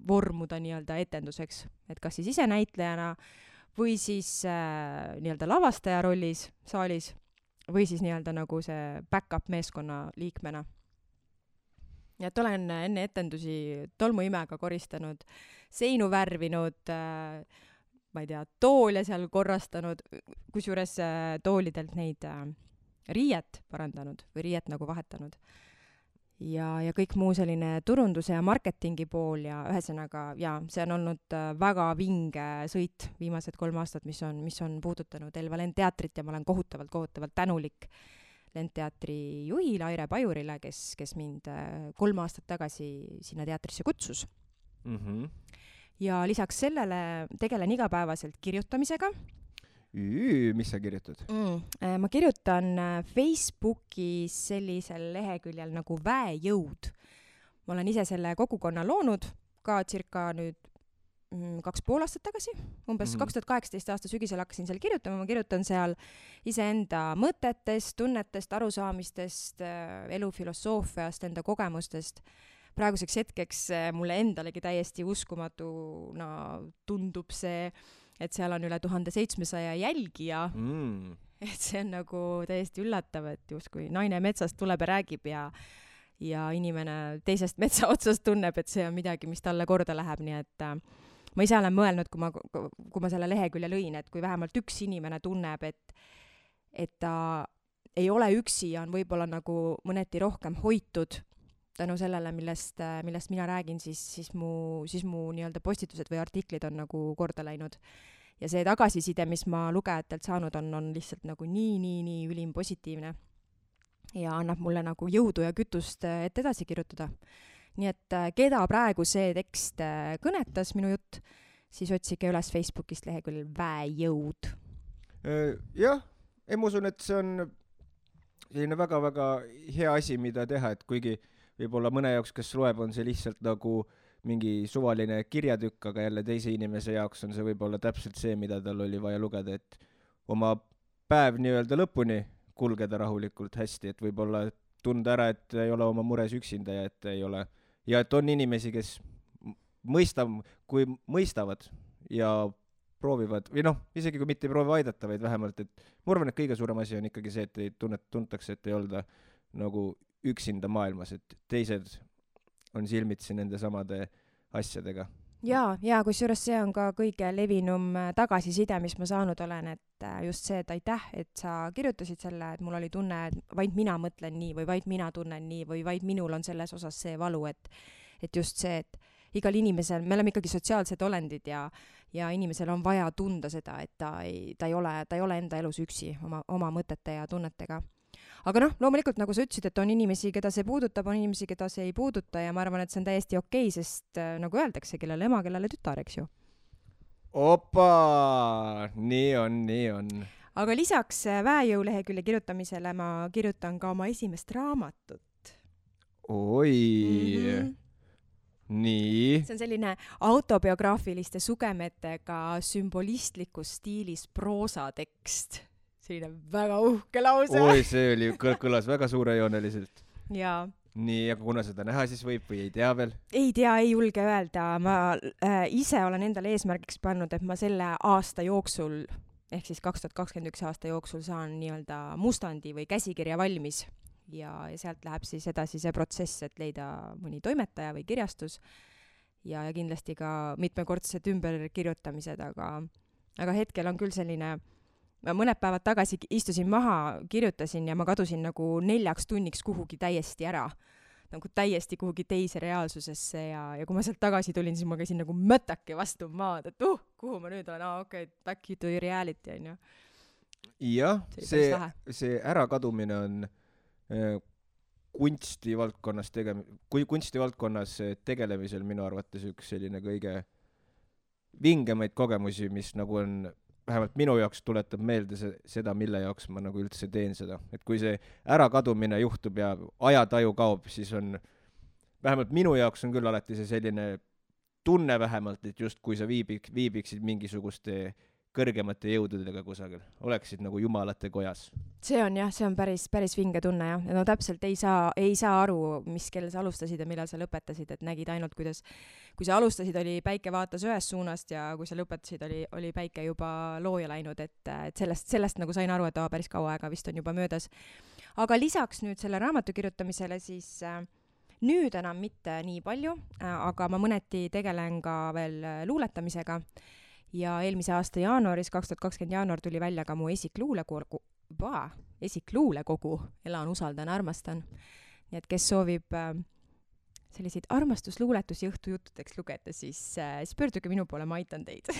vormuda nii-öelda etenduseks, et kas siis ise näitlejana või siis nii-öelda lavastaja rollis saalis või siis nii-öelda nagu see back-up meeskonna liikmena. Ja et olen enne etendusi tolmuimega koristanud, seinu värvinud, ma ei tea, toole seal korrastanud, kusjuures toolidelt neid riiet parandanud või riiet nagu vahetanud. Ja kõik muu selline turunduse ja marketingi pool ja ühesõnaga, see on olnud väga vinge sõit viimased 3 aastat, mis on puudutanud Elva Lendteatrit ja ma olen kohutavalt tänulik Lendteatri juhile Aire Pajurile, kes mind 3 aastat tagasi sinna teatrisse kutsus. Ja lisaks sellele tegelen igapäevaselt kirjutamisega. Mis sa kirjutad? Ma kirjutan Facebookis sellisel leheküljel nagu Väejõud. Ma olen ise selle kogukonna loonud ka circa nüüd 2,5 aastat tagasi. Umbes 2018 aasta sügisel hakkasin seal kirjutama. Ma kirjutan seal iseenda mõtetest, tunnetest, arusaamistest, elufilosoofiast, enda kogemustest. Praeguseks hetkeks mulle endalegi täiesti uskumatuna tundub see, et seal on üle 1700 jälgija. Et see on nagu täiesti üllatav, et justkui naine metsast tuleb ja räägib ja inimene teisest metsa otsast tunneb, et see on midagi, mis talle korda läheb. Nii et ma ise olen mõelnud, kui ma selle lehekülje lõin, et kui vähemalt üks inimene tunneb, et ta ei ole üksi ja on võib-olla nagu mõneti rohkem hoitud tänu sellele, millest mina räägin, siis mu nii-öelda postitused või artiklid on nagu korda läinud. Ja see tagasiside, mis ma lugejatelt saanud on lihtsalt nagu nii ülim positiivne ja annab mulle nagu jõudu ja kütust, et edasi kirjutada. Nii et keda praegu see tekst kõnetas, minu jutt, siis otsige üles Facebookist leheküljel Väejõud. Jah, ma usun, et see on selline väga-väga hea asi, mida teha, et kuigi võib-olla mõne jaoks, kes loeb, on see lihtsalt nagu mingi suvaline kirjatükk, aga jälle teise inimese jaoks on see võib-olla täpselt see, mida tal oli vaja lugeda, et oma päev nii-öelda lõpuni kulgeda rahulikult hästi, et võib-olla tunda ära, et ei ole oma mures üksinda ja et on inimesi, kes mõistavad ja proovivad, või isegi kui mitte ei proovi aidata, vaid vähemalt, et ma arvan, et kõige suurem asi on ikkagi see, et ei tuntakse, et ei olda nagu üksinda maailmas, et teised on silmitsi nende samade asjadega. Ja kusjuures see on ka kõige levinum tagasiside, mis ma saanud olen, et just see, et aitäh, et sa kirjutasid selle, et mul oli tunne, et vaid mina mõtlen nii või vaid mina tunnen nii või vaid minul on selles osas see valu, et just see, et igal inimesel, me oleme ikkagi sotsiaalsed olendid ja inimesel on vaja tunda seda, et ta ei ole enda elus üksi oma mõtete ja tunnetega. Aga loomulikult, nagu sa ütlesid, et on inimesi, keda see puudutab, on inimesi, keda see ei puuduta ja ma arvan, et see on täiesti okei, sest nagu öeldakse, kellele ema, kellele tütar, eks ju. Opa! Nii on. Aga lisaks Väejõu lehekülje kirjutamisele ma kirjutan ka oma esimest raamatut. Oi! Nii. See on selline autobiograafiliste sugemetega sümbolistlikus stiilis proosatekst. Selline väga uhke lause. Oi, see kõlas väga suurejooneliselt. Jaa. Nii, aga kuna seda näha siis võib või ei tea veel? Ei tea, ei julge öelda. Ma ise olen endale eesmärgiks pannud, et ma selle aasta jooksul, ehk siis 2021 aasta jooksul saan nii-öelda mustandi või käsikirja valmis. Ja sealt läheb siis edasi see protsess, et leida mõni toimetaja või kirjastus ja kindlasti ka mitmekordsed ümberkirjutamised, aga hetkel on küll selline. Ma mõned päevad tagasi istusin maha, kirjutasin ja ma kadusin nagu 4 tunniks kuhugi täiesti ära. Nagu täiesti kuhugi teise reaalsusesse ja kui ma sealt tagasi tulin, siis ma käisin nagu mõtake vastu maad, et kuhu ma nüüd olen, okei, back to reality on ju. Jah, see ärakadumine on kunstivaldkonnas tegelemisel minu arvates üks selline kõige vingemaid kogemusi, mis nagu on, vähemalt minu jaoks tuletab meelde seda, mille jaoks ma nagu üldse teen seda. Et kui see ärakadumine juhtub ja ajataju kaob, siis on, vähemalt minu jaoks on küll alati see selline tunne vähemalt, et just kui sa viibiksid mingisuguste kõrgemate jõududega kusagil, oleksid nagu jumalate kojas. See on päris vinge tunne, jah. No täpselt ei saa aru, mis kell sa alustasid ja millal sa lõpetasid, et nägid ainult, kuidas, kui sa alustasid, oli päike vaatas ühest suunast ja kui sa lõpetasid, oli päike juba looja läinud, et sellest nagu sain aru, et päris kaua aega vist on juba möödas. Aga lisaks nüüd selle raamatu kirjutamisele siis nüüd enam mitte nii palju, aga ma mõneti tegelen ka veel luuletamisega. Ja eelmise aasta jaanuaris, 2020 jaanuar tuli välja ka mu esikluulekogu, Elan, usaldan, armastan. Nii et kes soovib selliseid armastusluuletusi õhtujuttudeks lugeda, siis pöörduge minu poole, ma aitan teid.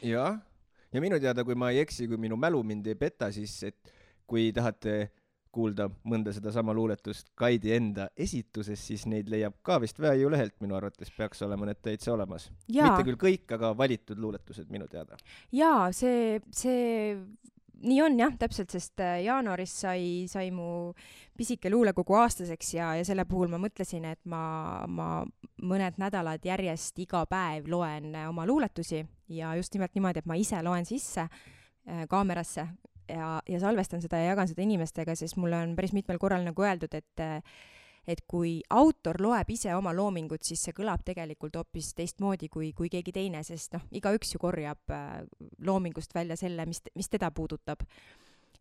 ja minu teada, kui ma ei eksi, kui minu mälu mind ei peta, siis et kui tahate kuulda mõnda seda sama luuletust Kaidi enda esituses, siis neid leiab ka vist Väeju lehelt, minu arvates peaks olema need täitsa olemas. Mitte küll kõik, aga valitud luuletused minu teada. Jaa, see nii on jah, täpselt, sest jaanuaris sai mu pisike luulekogu aastaseks ja selle puhul ma mõtlesin, et ma mõned nädalad järjest iga päev loen oma luuletusi ja just nimelt niimoodi, et ma ise loen sisse kaamerasse ja salvestan seda ja jagan seda inimestega, sest mulle on päris mitmel korral nagu öeldud, et kui autor loeb ise oma loomingut, siis see kõlab tegelikult hoopis teistmoodi kui keegi teine, sest igaüks ju korjab loomingust välja selle, mis teda puudutab.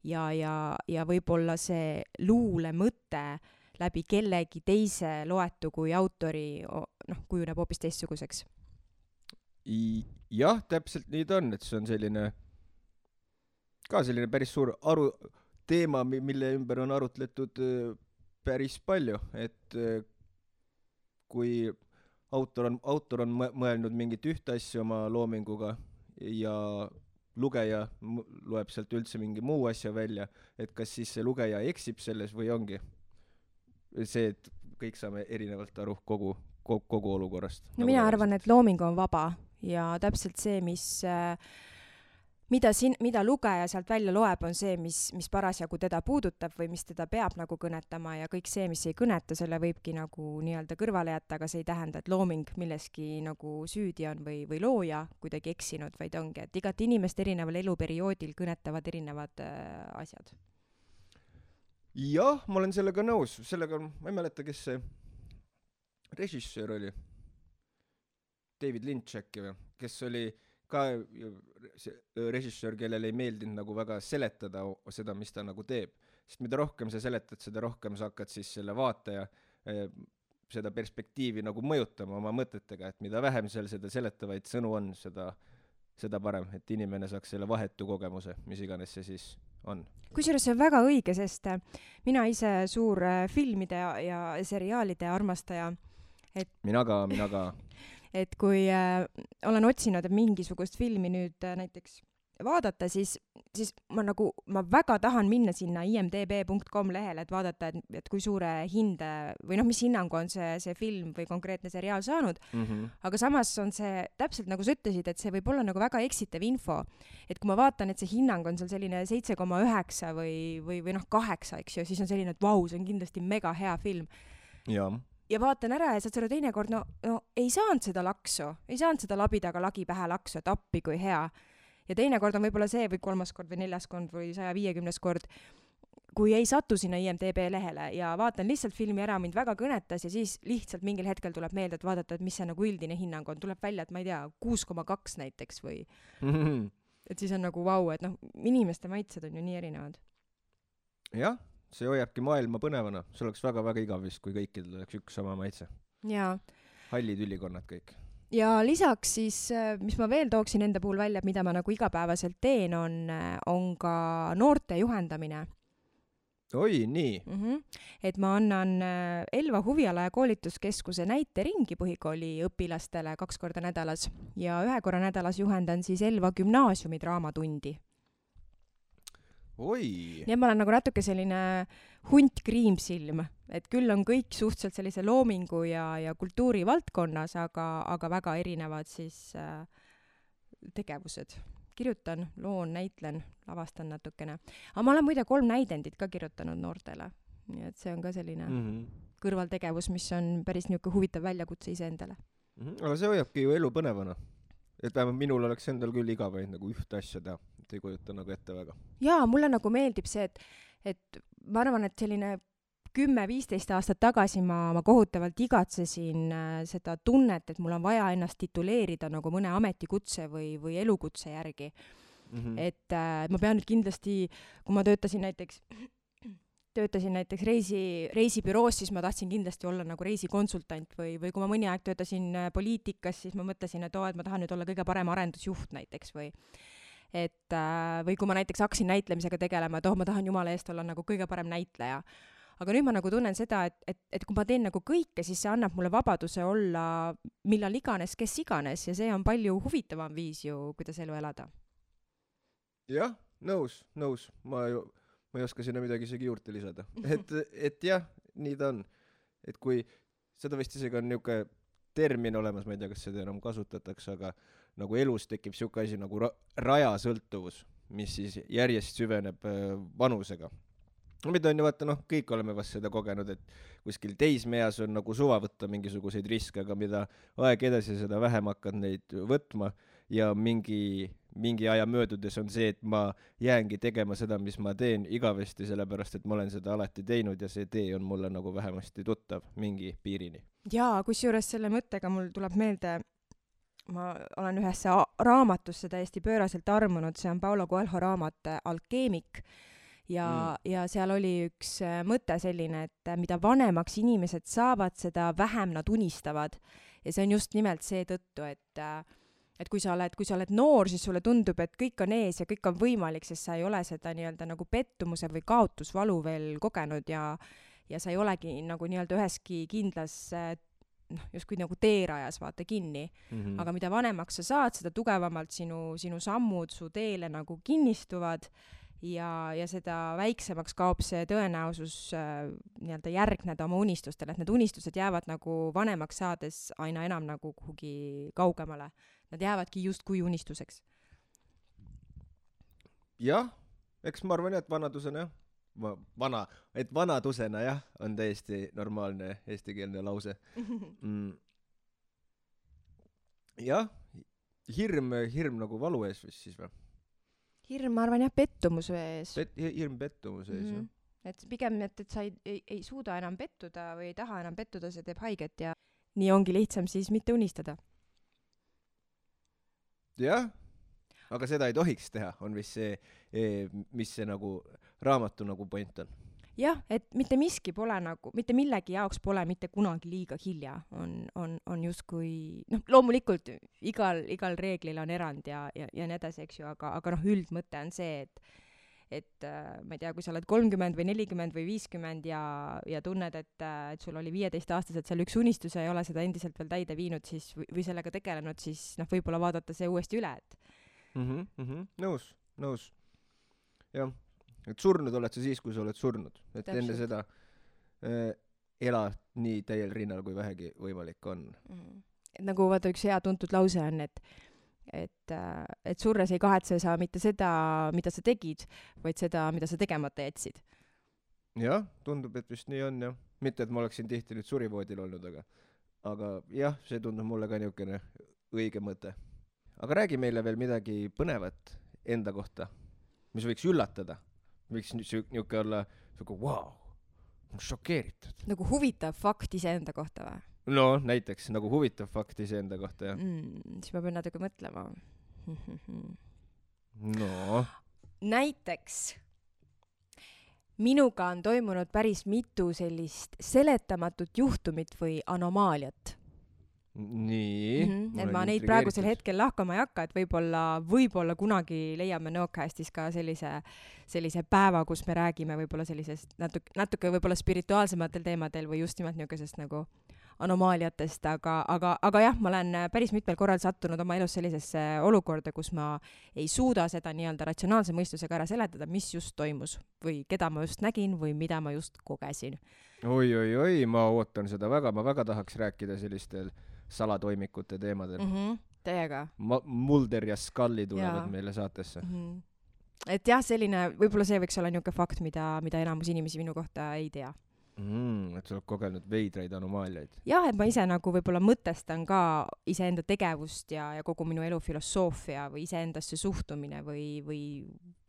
Ja võib-olla see luule mõte läbi kellegi teise loetu kui autori kujuneb hoopis teistsuguseks. Jah, täpselt nii ta on, et see on selline päris suur teema, mille ümber on arutletud päris palju, et kui autor on mõelnud mingit ühte asja oma loominguga ja lugeja loeb sealt üldse mingi muu asja välja, et kas siis see lugeja eksib selles või ongi see, et kõik saame erinevalt aru kogu olukorrast. No mina arvan, et looming on vaba ja täpselt see, mida lugeja sealt välja loeb, on see, mis parasjagu teda puudutab või mis teda peab nagu kõnetama ja kõik see, mis ei kõneta, selle võibki nagu nii-öelda kõrvale jätta, aga see ei tähenda, et looming milleski nagu süüdi on või looja kuidagi eksinud, vaid ongi, et igat inimest erineval eluperioodil kõnetavad erinevad asjad. Jah, ma olen sellega nõus. Ma ei mäleta, kes see režissöör oli. David Lynch äkki või? Kes oli ka režissöör, kellel ei meeldinud nagu väga seletada seda, mis ta nagu teeb. Sest mida rohkem sa seletad, seda rohkem sa hakkad siis selle vaataja seda perspektiivi nagu mõjutama oma mõtetega, et mida vähem seal seda seletavaid sõnu on, seda parem, et inimene saaks selle vahetu kogemuse, mis iganes see siis on. Kusjuures see on väga õige, sest mina ise suur filmide ja seriaalide armastaja. Mina ka. Et kui olen otsinud mingisugust filmi nüüd näiteks vaadata, siis ma väga tahan minna sinna imdb.com lehele, et vaadata, et kui suure hinde või mis hinnangu on see film või konkreetne seriaal saanud. Aga samas on see täpselt nagu sa ütlesid, et see võib olla nagu väga eksitav info. Et kui ma vaatan, et see hinnang on seal selline 7,9 või 8, eks ju, siis on selline, et vau, see on kindlasti mega hea film. Ja vaatan ära ja saad selle teinekord, ei saanud seda laksu, ei saanud seda labidaga lagi pähe laksu, et appi kui hea. Ja teinekord on võib-olla see või 3. kord või 4. kord või 150. kord, kui ei satu sinna IMDB lehele ja vaatan lihtsalt filmi ära, mind väga kõnetas ja siis lihtsalt mingil hetkel tuleb meelde, et vaadata, et mis see nagu üldine hinnang on. Tuleb välja, et ma ei tea, 6,2 näiteks või et siis on nagu vau, et inimeste maitsed on ju nii erinevad. Jah. See hoiabki maailma põnevana. See oleks väga-väga igav vist, kui kõikidel oleks üks sama maitse. Jaa. Hallid ülikonnad kõik. Ja lisaks siis, mis ma veel tooksin enda puhul välja, mida ma nagu igapäevaselt teen, on ka noorte juhendamine. Oi, nii. Et ma annan Elva huviala- ja koolituskeskuse näiteringi põhikooli õpilastele 2 korda nädalas ja 1 korra nädalas juhendan siis Elva gümnaasiumi draamatundi. oi. nii et ma olen nagu natuke selline hunt kriimsilm, et küll on kõik suhteliselt sellise loomingu ja kultuuri valdkonnas, aga väga erinevad siis tegevused. Kirjutan, loon, näitlen, lavastan natukene. Aga ma olen muide 3 näidendit ka kirjutanud noortele. Nii et see on ka selline kõrvaltegevus, mis on päris niisugune huvitav väljakutse iseendale. Aga see hoiabki ju elu põnevana. Et vähemalt minul oleks endal küll iga päev nagu ühte asja teha. Et ei kujuta nagu ette väga. Jaa, mulle nagu meeldib see, et ma arvan, et selline 10-15 aastat tagasi ma kohutavalt igatsesin seda tunnet, et mul on vaja ennast tituleerida nagu mõne ametikutse või elukutse järgi. Et ma pean nüüd kindlasti, kui ma töötasin näiteks reisibüroos, siis ma tahtsin kindlasti olla nagu reisikonsultant või kui ma mõni aeg töötasin poliitikas, siis ma mõtlesin, et ma tahan nüüd olla kõige parem arendusjuht näiteks või kui ma näiteks hakkasin näitlemisega tegelema, et ma tahan jumala eest olla nagu kõige parem näitleja. Aga nüüd ma nagu tunnen seda, et kui ma teen nagu kõike, siis see annab mulle vabaduse olla millal iganes, kes iganes ja see on palju huvitavam viis ju, kuidas elu elada. Jah, nõus. Ma ei oska sinna midagi isegi juurde lisada. Et jah, nii ta on. Et kui seda vist isegi on niuke termin olemas, ma ei tea, kas seda enam kasutatakse, aga nagu elus tekib siuke asi nagu rajasõltuvus, mis siis järjest süveneb vanusega. Mida on ju vaata, kõik oleme vast seda kogenud, et kuskil teismeas on nagu suva võtta mingisuguseid riske, aga mida aeg edasi, seda vähem hakkad neid võtma ja mingi aja möödudes on see, et ma jäängi tegema seda, mis ma teen igavesti, sellepärast, et ma olen seda alati teinud ja see tee on mulle nagu vähemasti tuttav mingi piirini. Jaa, kusjuures selle mõttega mul tuleb meelde, ma olen ühesse raamatusse täiesti pööraselt armunud, see on Paulo Coelho raamat Alkeemik ja seal oli üks mõte selline, et mida vanemaks inimesed saavad, seda vähem nad unistavad. Ja see on just nimelt see tõttu, et kui sa oled noor, siis sulle tundub, et kõik on ees ja kõik on võimalik, sest sa ei ole seda nii-öelda nagu pettumuse või kaotusvalu veel kogenud ja sa ei olegi nagu nii-öelda üheski kindlas justkui nagu teerajas vaata kinni. Aga mida vanemaks sa saad, seda tugevamalt sinu sammud su teele nagu kinnistuvad ja seda väiksemaks kaob see tõenäosus nii-öelda järgneda oma unistustele, et need unistused jäävad nagu vanemaks saades aina enam nagu kuhugi kaugemale. Nad jäävadki justkui unistuseks. Jah, eks ma arvan, et vanadusena jah, on täiesti normaalne eestikeelne lause. Jah, hirm nagu valu ees vist siis või? Hirm, ma arvan jah, pettumuse ees. Hirm pettumuse ees, jah. Et pigem, et sa ei suuda enam pettuda või ei taha enam pettuda, see teeb haiget ja nii ongi lihtsam siis mitte unistada. Jah, aga seda ei tohiks teha, on vist see, mis see nagu raamatu nagu point on. Jah, et mitte miski pole nagu, mitte millegi jaoks pole mitte kunagi liiga hilja, on justkui, loomulikult igal reeglil on erand ja nii edasi, eks ju, aga üldmõte on see, et ma ei tea, kui sa oled 30 või 40 või 50 ja tunned, et sul oli 15-aastaselt seal üks unistus ja ei ole seda endiselt veel täide viinud siis, või sellega tegelenud, siis võib-olla vaadata see uuesti üle, et Nõus. Jah. Et surnud oled sa siis, kui sa oled surnud. Et täpselt. Enne seda ela nii täiel rinnal, kui vähegi võimalik on. Nagu vaata üks hea tuntud lause on, et surres ei kahetse sa mitte seda, mida sa tegid, vaid seda, mida sa tegemata jätsid. Jah, tundub, et vist nii on, jah. Mitte, et ma oleksin tihti nüüd surivoodil olnud, aga jah, see tundub mulle ka niisugune õige mõte. Aga räägi meile veel midagi põnevat enda kohta, mis võiks üllatada. Võiks niuke olla wow, šokeeritud. Nagu huvitav fakt iseenda kohta või? No, näiteks, nagu huvitav fakt iseenda kohta, jah. Siis ma pean natuke mõtlema. No. Näiteks, minuga on toimunud päris mitu sellist seletamatut juhtumit või anomaaliat. Nii. Et ma neid praegusel hetkel lahkama ei hakka, et võib-olla kunagi leiame Nõokäästis ka sellise päeva, kus me räägime võib-olla sellisest natuke võib-olla spirituaalsematel teemadel või just nimelt niisugusest nagu anomaaliatest, aga jah, ma olen päris mitmel korral sattunud oma elus sellisesse olukorda, kus ma ei suuda seda nii-öelda ratsionaalse mõistusega ära seletada, mis just toimus või keda ma just nägin või mida ma just kogesin. Oi, ma ootan seda väga, ma väga tahaks rääkida sellistel salatoimikute teemadel. Teiega. Mulder ja Scully tulevad meile saatesse. Et jah, selline, võib-olla see võiks olla niisugune fakt, mida enamus inimesi minu kohta ei tea. Et sa oled kogenud veidraid anomaaliaid. Jah, et ma ise nagu võib-olla mõtestan ka iseenda tegevust ja kogu minu elu filosoofia või iseendasse suhtumine või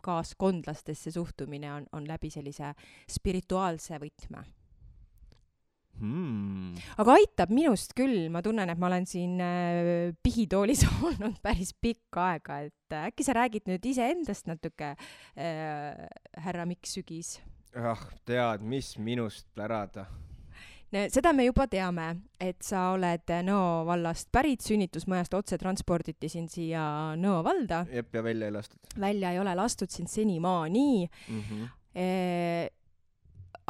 kaaskondlastesse suhtumine on läbi sellise spirituaalse võtme. Aga aitab minust küll, ma tunnen, et ma olen siin pihitoolis olnud päris pikka aega, et äkki sa räägid nüüd iseendast natuke, härra Mikk Sügis? Tead, mis minust pärada? Seda me juba teame, et sa oled Nõo vallast pärit, sünnitusmajast otse transporditi sind siia Nõo valda. Jep, ja välja ei lastud. Välja ei ole lastud sind senimaani.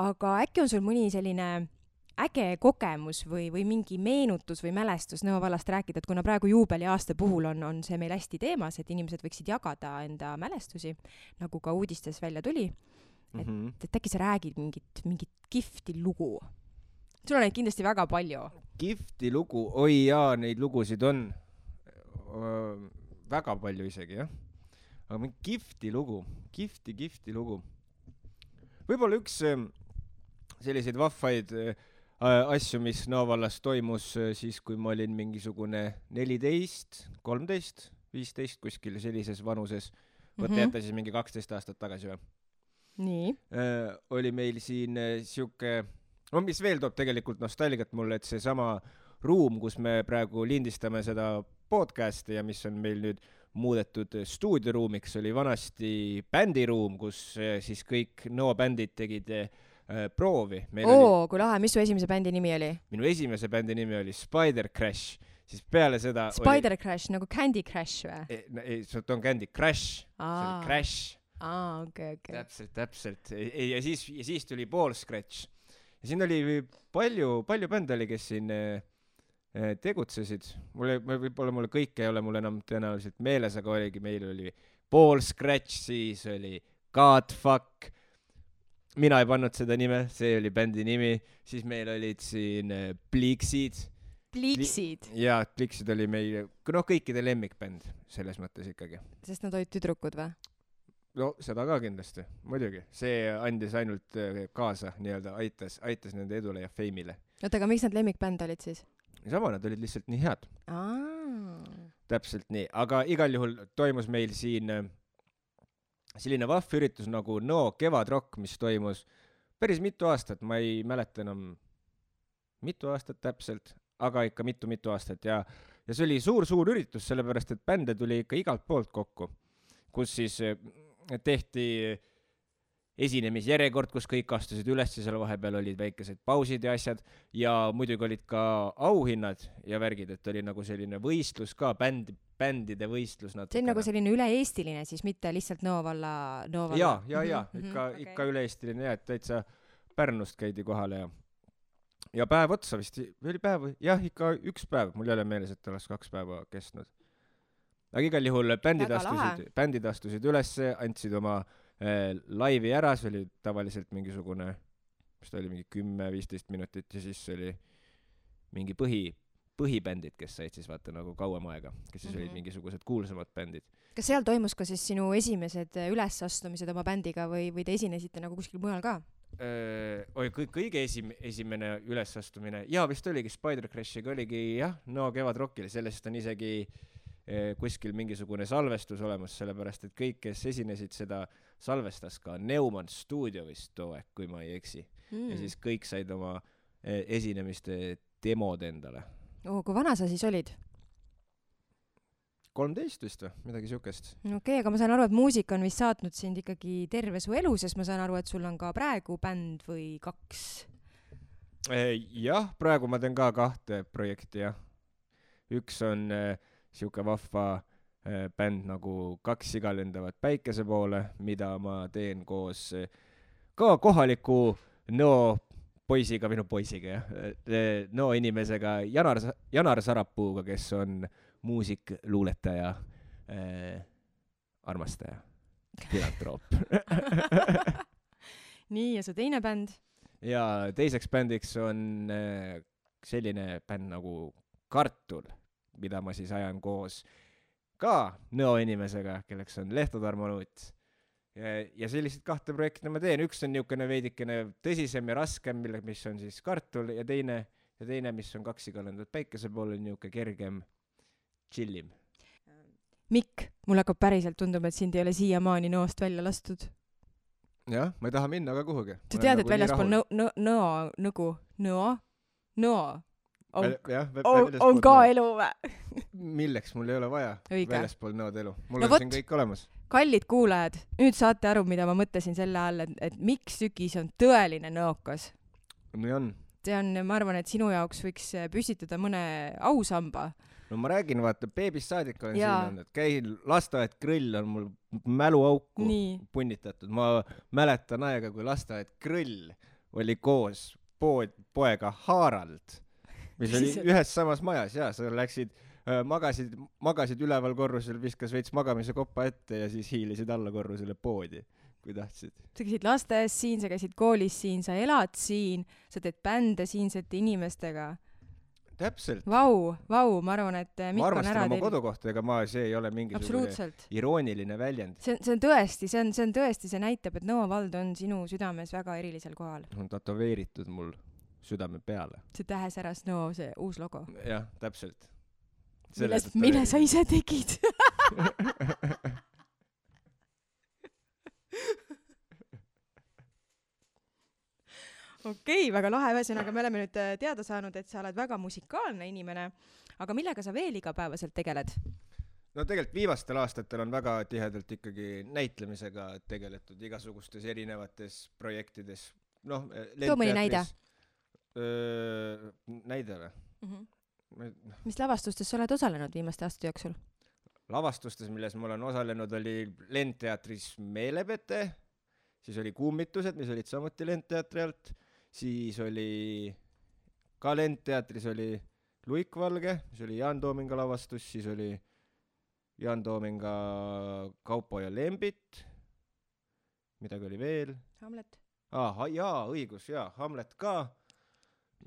Aga äkki on sul mõni selline äge kogemus või mingi meenutus või mälestus Nõo vallast rääkida, et kuna praegu juubeliaasta puhul on see meil hästi teemas, et inimesed võiksid jagada enda mälestusi, nagu ka uudistes välja tuli. Et äkki sa räägid mingit kihvti lugu. Sul on neid kindlasti väga palju. Kihvti lugu? Oi jaa, neid lugusid on väga palju isegi, jah. Aga mingi kihvti lugu. Kihvti lugu. Võib-olla üks selliseid vahvaid asju, mis Nõo vallas toimus siis, kui ma olin mingisugune 14, 13, 15 kuskil sellises vanuses. Võtta jätta siis mingi 12 aastat tagasi või? Nii. Oli meil siin siuke, mis veel toob tegelikult nostalgiat mulle, et see sama ruum, kus me praegu lindistame seda podcasti ja mis on meil nüüd muudetud stuudioruumiks, oli vanasti bändiruum, kus siis kõik Nõo bändid tegid proovi. Kui lahe, mis su esimese bändi nimi oli? Minu esimese bändi nimi oli Spider Crash, siis peale seda Spider Crash, nagu Candy Crash või? Ei, see on Candy Crash, see oli Crash. Okay. Täpselt. Ja siis tuli Ball Scratch. Ja siin oli palju bände oli, kes siin tegutsesid. Võib-olla mulle kõik ei ole mul enam tõenäoliselt meeles, aga meil oli Ball Scratch, siis oli Godfuck. Mina ei pannud seda nime, see oli bändi nimi. Siis meil olid siin Pliksid. Pliksid? Jaa, Pliksid oli meil, kõikide lemmikbänd selles mõttes ikkagi. Sest nad olid tüdrukud või? No, seda ka kindlasti, muidugi. See andis ainult kaasa, nii-öelda aitas nende edule ja feimile. Aga miks nad lemmikbänd olid siis? Sama, nad olid lihtsalt nii head. Täpselt nii, aga igal juhul toimus meil siin selline vahv üritus nagu Nõo kevadrock, mis toimus päris mitu aastat, ma ei mäleta enam mitu aastat täpselt, aga ikka mitu aastat ja see oli suur üritus, sellepärast et bände tuli ikka igalt poolt kokku, kus siis tehti esinemisjärjekord, kus kõik astusid üles ja seal vahepeal olid väikesed pausid ja asjad ja muidugi olid ka auhinnad ja värgid, et oli nagu selline võistlus ka, bändide võistlus natuke. See on nagu selline üle-eestiline siis, mitte lihtsalt Nõo valla? Jaa, ikka üle-eestiline ja et täitsa Pärnust käidi kohale ja päev otsa vist, või oli päev, jah, ikka üks päev, mul ei ole meeles, et oleks 2 päeva kestnud. Aga igal juhul bändid astusid ülesse, andsid oma laivi ära, see oli tavaliselt mingisugune, mis ta oli, mingi 10-15 minutit ja siis oli mingi põhibändid, kes said siis vaata nagu kauem aega, kes siis olid mingisugused kuulsamad bändid. Kas seal toimus ka siis sinu esimesed ülesastumised oma bändiga või te esinesite nagu kuskil mujal ka? Kõige esimene ülesastumine, jaa, vist oligi Spider Crashiga, oligi jah, Nõo kevadrockil, sellest on isegi kuskil mingisugune salvestus olemas, sellepärast et kõik, kes esinesid, seda salvestas ka Neumann Studio vist too aeg, kui ma ei eksi. Ja siis kõik said oma esinemiste demod endale. Kui vana sa siis olid? 13 vist või, midagi siukest. Okei, aga ma saan aru, et muusika on vist saatnud sind ikkagi terve su elu, sest ma saan aru, et sul on ka praegu bänd või 2? Jah, praegu ma teen ka 2 projekti, jah. Üks on siuke vahva bänd nagu 2 siga lendavad päikese poole, mida ma teen koos ka kohaliku Nõo poisiga, minu poisiga jah, Nõo inimesega Janar Sarapuuga, kes on muusik, luuletaja, armastaja, filantroop. Nii, ja see teine bänd? Ja teiseks bändiks on selline bänd nagu Kartul, mida ma siis ajan koos ka Nõo inimesega, kelleks on Lehto Tarmo Nuut. Ja sellised 2 projekti ma teen. Üks on niisugune veidikene tõsisem ja raskem, mis on siis Kartul, ja teine, mis on Kaksi kalendud päikese pool, on niisugune kergem, chillim. Mikk, mul hakkab päriselt tundub, et sind ei ole siiamaani Nõost välja lastud. Jah, ma ei taha minna ka kuhugi. Sa tead, et väljaspool Nõo on ka elu või? Milleks mul ei ole vaja väljaspool Nõod elu? Mul on siin kõik olemas. Kallid kuulajad, nüüd saate aru, mida ma mõtlesin selle all, et Mikk Sükis on tõeline nõokas. Nii on. See on, ma arvan, et sinu jaoks võiks püstitada mõne ausamba. No ma räägin, vaata, beebist saadik olen siin olnud, et käin lasteaed Grõll on mul mäluauku punnitatud. Ma mäletan aega, kui lasteaed Grõll oli koos poega Harald, mis oli ühes samas majas ja sa läksid, magasid üleval korrusel, viskas veits magamise koppa ette ja siis hiilisid alla korrusele poodi, kui tahtsid. Sa käisid lasteaias siin, sa käisid koolis siin, sa elad siin, sa teed bände siinsete inimestega. Täpselt. Vau, ma arvan, et Mikk on ära ma armastan oma kodukohta, ega see ei ole mingisugune irooniline väljend. See on tõesti, see näitab, et Nõo vald on sinu südames väga erilisel kohal. On tatoveeritud mul südame peale. See tähesäras Nõo, see uus logo. Jah, täpselt. Mille sa ise tegid? Okei, väga lahe, ühesõnaga me oleme nüüd teada saanud, et sa oled väga musikaalne inimene, aga millega sa veel igapäevaselt tegeled? No tegelikult viimastel aastatel on väga tihedalt ikkagi näitlemisega tegeletud igasugustes erinevates projektides. Too mõni näide? Näide või? Mis lavastustes sa oled osalenud viimaste aastate jooksul? Lavastustes, milles ma olen osalenud, oli Lendteatris Meelepete, siis oli Kummitused, mis olid samuti Lendteatri alt, siis oli ka Lendteatris oli Luikvalge, mis oli Jaan Toominga lavastus, siis oli Jaan Toominga Kaupo ja Lembit, midagi oli veel. Hamlet. Õigus, Hamlet ka.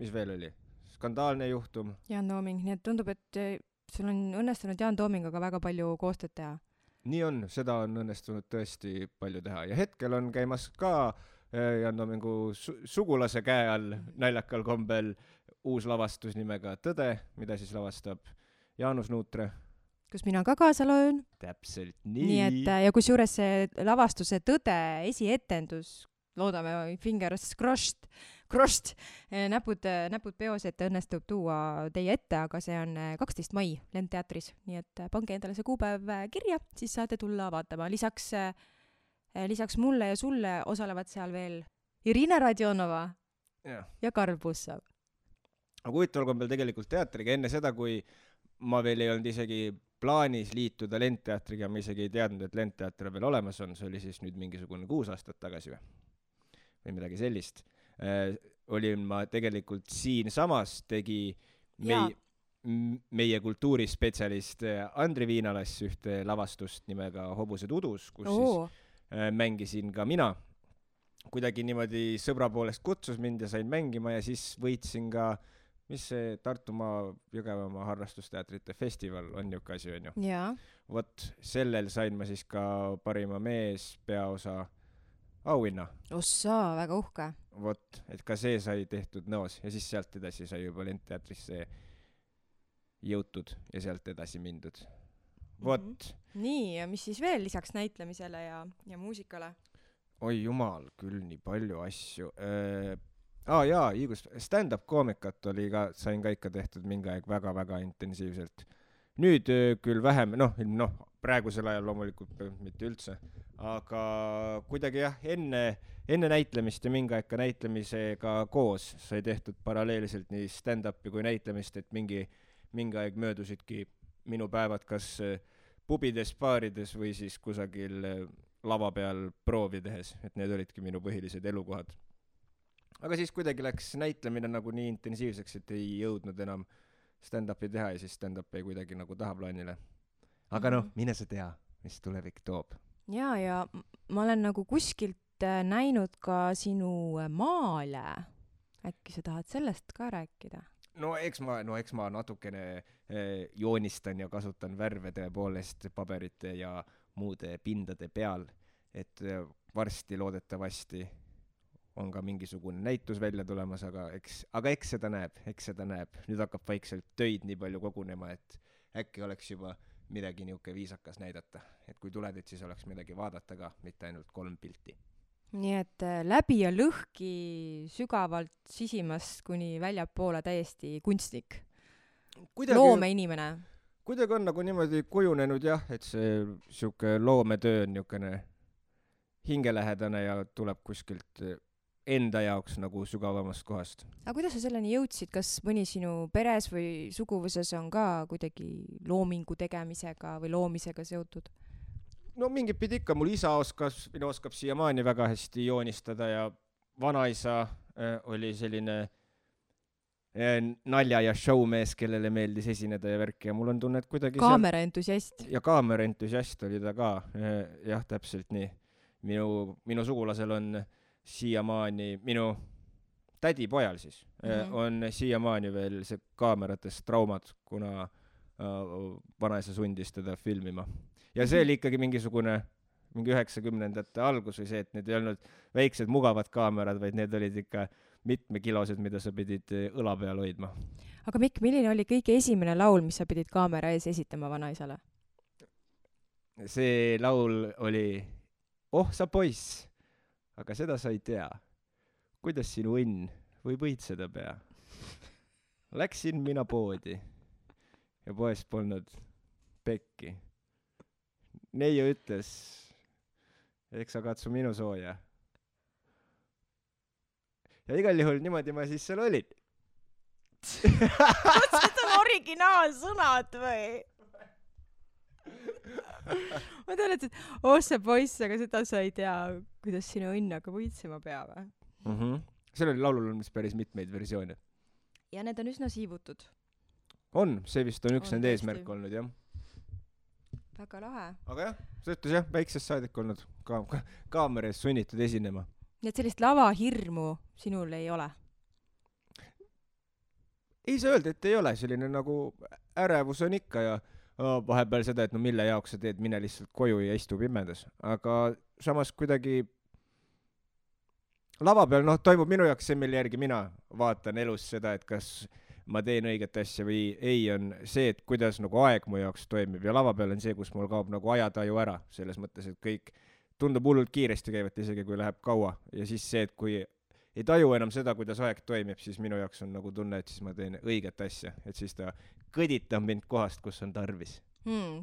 Mis veel oli? Skandaalne juhtum. Jaan Tooming, nii et tundub, et sul on õnnestunud Jaan Toomingaga väga palju koostööd teha. Nii on, seda on õnnestunud tõesti palju teha ja hetkel on käimas ka Jaan Toomingu sugulase käe all naljakal kombel uus lavastus nimega Tõde, mida siis lavastab Jaanus Nuutre. Kus mina ka kaasa loen. Täpselt nii. Nii et, ja kus juures see lavastuse Tõde esietendus, loodame fingers crossed, näpud peos, et õnnestub tuua teie ette, aga see on 12. mai Lendteatris, nii et pange endale see kuupäev kirja, siis saate tulla vaatama. Lisaks mulle ja sulle osalevad seal veel Irina Radionova ja Karl Pussov. Aga huvitaval kombel tegelikult teatriga enne seda, kui ma veel ei olnud isegi plaanis liituda Lendteatriga, ma isegi ei teadnud, et Lendteater veel olemas on, see oli siis nüüd mingisugune 6 aastat tagasi või midagi sellist. Olin ma tegelikult siinsamas tegi meie kultuurispetsialist Andri Viinalas ühte lavastust nimega Hobused udus, kus siis mängisin ka mina. Kuidagi niimoodi sõbra poolest kutsus mind ja sain mängima ja siis võitsin ka, mis see Tartumaa Jõgevamaa harrastusteatrite festival on niuke asi, on ju. Vot sellel sain ma siis ka parima mees peaosa auhinna. Ossa, väga uhke. Vot, et ka see sai tehtud Nõos ja siis sealt edasi sai juba Lendteatrisse jõutud ja sealt edasi mindud. Vot. Nii, ja mis siis veel lisaks näitlemisele ja muusikale? Oi jumal, küll nii palju asju. Stand-up koomikat oli ka, sain ka ikka tehtud mingi aeg väga-väga intensiivselt. Nüüd küll vähem, praegusel ajal loomulikult mitte üldse, aga kuidagi enne näitlemist ja mingi aeg ka näitlemisega koos sai tehtud paralleelselt nii stand-upi kui näitlemist, et mingi aeg möödusidki minu päevad kas pubides, baarides või siis kusagil lava peal proovi tehes, et need olidki minu põhilised elukohad. aga siis kuidagi läks näitlemine nagu nii intensiivseks, et ei jõudnud enam stand-upi teha ja siis stand-up ei kuidagi nagu tahaplaanile. Aga noh, mine sa tea, mis tulevik toob. Ja ma olen nagu kuskilt näinud ka sinu maale. Äkki sa tahad sellest ka rääkida? No eks ma natukene joonistan ja kasutan värve tõepoolest paberite ja muude pindade peal, et varsti loodetavasti on ka mingisugune näitus välja tulemas, aga eks seda näeb. Nüüd hakkab vaikselt töid nii palju kogunema, et äkki oleks juba midagi niuke viisakas näidata. Et kui tuled, et siis oleks midagi vaadata ka, mitte ainult 3 pilti. Nii et läbi ja lõhki sügavalt sisimast kuni väljapoole täiesti kunstnik. Loomeinimene. Kuidagi on nagu niimoodi kujunenud jah, et see siuke loometöö on niukene hingelähedane ja tuleb kuskilt enda jaoks nagu sügavamast kohast. Aga kuidas sa selleni jõudsid? Kas mõni sinu peres või suguvuses on ka kuidagi loomingu tegemisega või loomisega seotud? No mingit pidi ikka, mul isa oskab siiamaani väga hästi joonistada ja vanaisa oli selline nalja ja showmees, kellele meeldis esineda ja värki ja mul on tunne, et kuidagi kaameraentusiast. Ja kaameraentusiast oli ta ka, jah, täpselt nii. Minu sugulasel on siiamaani, minu tädi pojal siis, on siiamaani veel see kaameratest traumad, kuna vanaisa sundis teda filmima. Ja see oli ikkagi mingi 90ndate algus või see, et need ei olnud väiksed mugavad kaamerad, vaid need olid ikka mitmekilosed, mida sa pidid õla peal hoidma. Aga Mikk, milline oli kõige esimene laul, mis sa pidid kaamera ees esitama vanaisale? See laul oli Oh sa poiss, aga seda sa ei tea. Kuidas sinu õnn või võitseda pea? Läksin mina poodi ja poes polnud pekki. Neiu ütles, eks sa katsu minu sooja. Ja igal juhul niimoodi ma siis seal olin. Kas seda on originaalsõnad või? Ma tean, et oh sa poiss, aga seda sa ei tea, kuidas sinu õnn aga võitsema peab. Sellel laulul on päris mitmeid versioone. Ja need on üsna siivutud. On, see vist on üks nende eesmärk olnud, jah. Väga lahe. Aga jah, see ütles jah, väiksest saadik olnud kaamera ees sunnitud esinema. Nii et sellist lavahirmu sinul ei ole? Ei saa öelda, et ei ole. Selline nagu ärevus on ikka ja vahepeal seda, et no mille jaoks sa teed, mine lihtsalt koju ja istu pimedas. Aga samas kuidagi lava peal, toimub minu jaoks see, mille järgi mina vaatan elus seda, et kas ma teen õiget asja või ei, on see, et kuidas nagu aeg mu jaoks toimib ja lava peal on see, kus mul kaob nagu ajataju ära, selles mõttes, et kõik tundub hullult kiiresti käivat, isegi kui läheb kaua ja siis see, et kui ei taju enam seda, kuidas aeg toimib, siis minu jaoks on nagu tunne, et siis ma teen õiget asja, et siis ta kõditab mind kohast, kus on tarvis.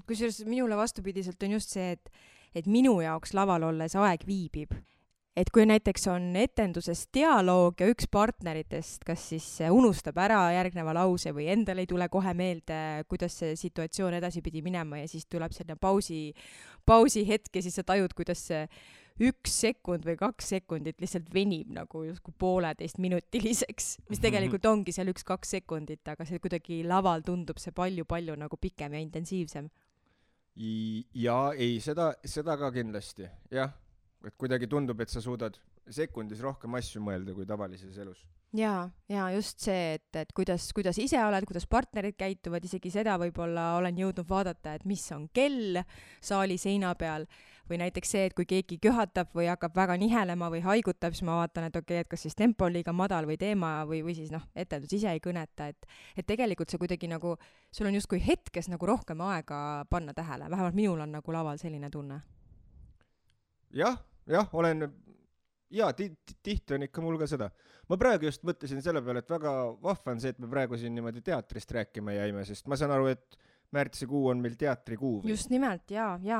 Kusjuures minule vastupidiselt on just see, et minu jaoks laval olles aeg viibib. Et kui näiteks on etenduses dialoog ja üks partneritest kas siis unustab ära järgneva lause või endal ei tule kohe meelde, kuidas see situatsioon edasi pidi minema ja siis tuleb selline pausi hetk ja siis sa tajud, kuidas see 1 sekund või 2 sekundit lihtsalt venib nagu justkui 1,5-minutiliseks, mis tegelikult ongi seal 1-2 sekundit, aga see kuidagi laval tundub see palju nagu pikem ja intensiivsem. Ja ei, seda ka kindlasti, jah. Et kuidagi tundub, et sa suudad sekundis rohkem asju mõelda kui tavalises elus. Ja just see, et kuidas ise oled, kuidas partnerid käituvad, isegi seda võib-olla olen jõudnud vaadata, et mis on kell saali seina peal või näiteks see, et kui keegi köhatab või hakkab väga nihelema või haigutab, siis ma vaatan, et okei, et kas siis tempo on liiga madal või teema või siis etendus ise ei kõneta, et tegelikult see kuidagi nagu, sul on justkui hetkes nagu rohkem aega panna tähele, vähemalt minul on nagu laval selline tunne. Jah, olen, tihti on ikka mul ka seda. Ma praegu just mõtlesin selle peale, et väga vahva on see, et me praegu siin niimoodi teatrist rääkima jäime, sest ma saan aru, et märtsikuu on meil teatrikuu. Või? Just nimelt,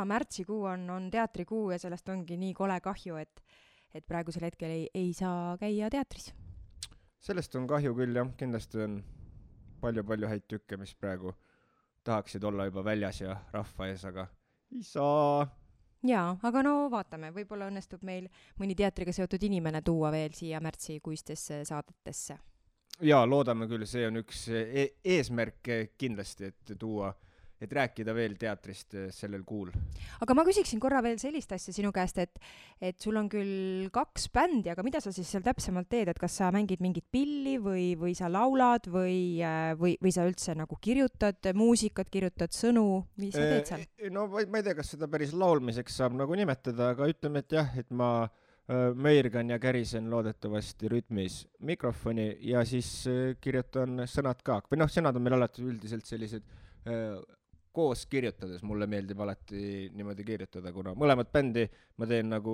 märtsikuu on teatrikuu ja sellest ongi nii kole kahju, et praegusel hetkel ei saa käia teatris. Sellest on kahju küll, jah, kindlasti on palju häid tükke, mis praegu tahaksid olla juba väljas ja rahva ees, aga ei saa. Jaa, aga no vaatame, võib-olla õnnestub meil mõni teatriga seotud inimene tuua veel siia märtsikuistesse saadetesse. Jaa, loodame küll, see on üks eesmärk kindlasti, et tuua, et rääkida veel teatrist sellel kuul. Aga ma küsiksin korra veel sellist asja sinu käest, et sul on küll 2 bändi, aga mida sa siis seal täpsemalt teed, et kas sa mängid mingit pilli või sa laulad või sa üldse nagu kirjutad muusikat, kirjutad sõnu, mis sa teed seal? No ma ei tea, kas seda päris laulmiseks saab nagu nimetada, aga ütleme, et jah, et ma möirgan ja kärisen loodetavasti rütmis mikrofoni ja siis kirjutan sõnad ka. Või noh, sõnad on meil alati üldiselt sellised koos kirjutades, mulle meeldib alati niimoodi kirjutada, kuna mõlemat bändi ma teen nagu,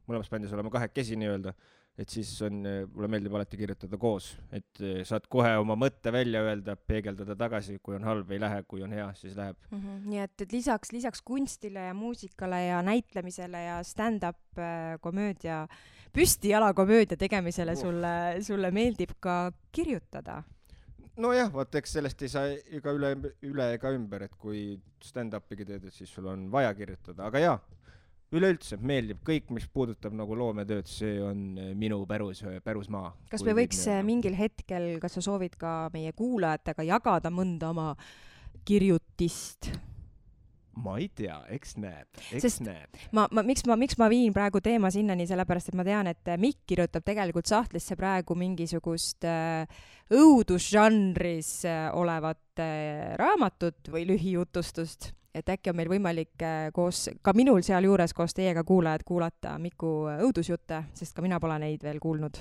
mõlemas bändis oleme 2 nii-öelda, et siis mulle meeldib alati kirjutada koos, et saad kohe oma mõtte välja öelda, peegeldada tagasi, kui on halb ei lähe, kui on hea, siis läheb. Nii et lisaks kunstile ja muusikale ja näitlemisele ja stand-up komöödia, püstijalakomöödia tegemisele sulle meeldib ka kirjutada? Nojah, vaat eks sellest ei saa ega üle ega ümber, et kui stand-upigi teed, et siis sul on vaja kirjutada, aga jaa, üleüldse meeldib kõik, mis puudutab nagu loometööd, see on minu pärusmaa. Kas me võiks mingil hetkel, kas sa soovid ka meie kuulajatega jagada mõnda oma kirjutist? Ma ei tea, eks näeb. Miks ma viin praegu teema sinnani, sellepärast et ma tean, et Mikk kirjutab tegelikult sahtlisse praegu mingisugust õudusžanris olevat raamatut või lühijutustust, et äkki on meil võimalik koos, ka minul sealjuures koos teiega kuulajad kuulata Miku õudusjutte, sest ka mina pole neid veel kuulnud.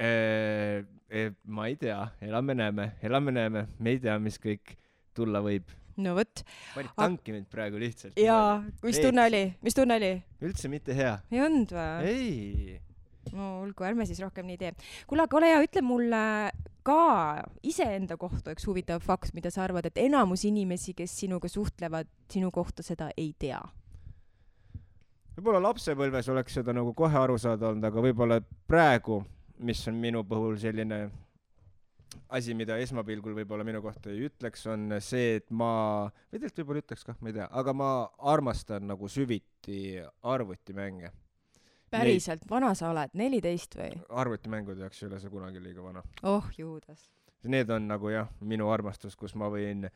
Ma ei tea, elame-näeme, me ei tea, mis kõik tulla võib. No võt. Panid tanki mind praegu lihtsalt. Jaa, mis tunne oli? Üldse mitte hea. Ei olnud või? Ei. No olgu, ärme siis rohkem nii tee. Kuule, aga ole hea, ütle mulle ka iseenda kohta üks huvitav fakt, mida sa arvad, et enamus inimesi, kes sinuga suhtlevad, sinu kohta seda ei tea. Võib-olla lapsepõlves oleks seda nagu kohe aru saada olnud, aga võib-olla praegu, mis on minu puhul selline asi, mida esmapilgul võib-olla minu kohta ei ütleks, on see, et või tegelikult võib-olla ütleks kah, ma ei tea, aga ma armastan nagu süviti arvutimänge. Päriselt, vana sa oled, 14 või? Arvutimängud jaoks ei ole see kunagi liiga vana. Oh, juudas. Need on nagu jah, minu armastus, kus ma võin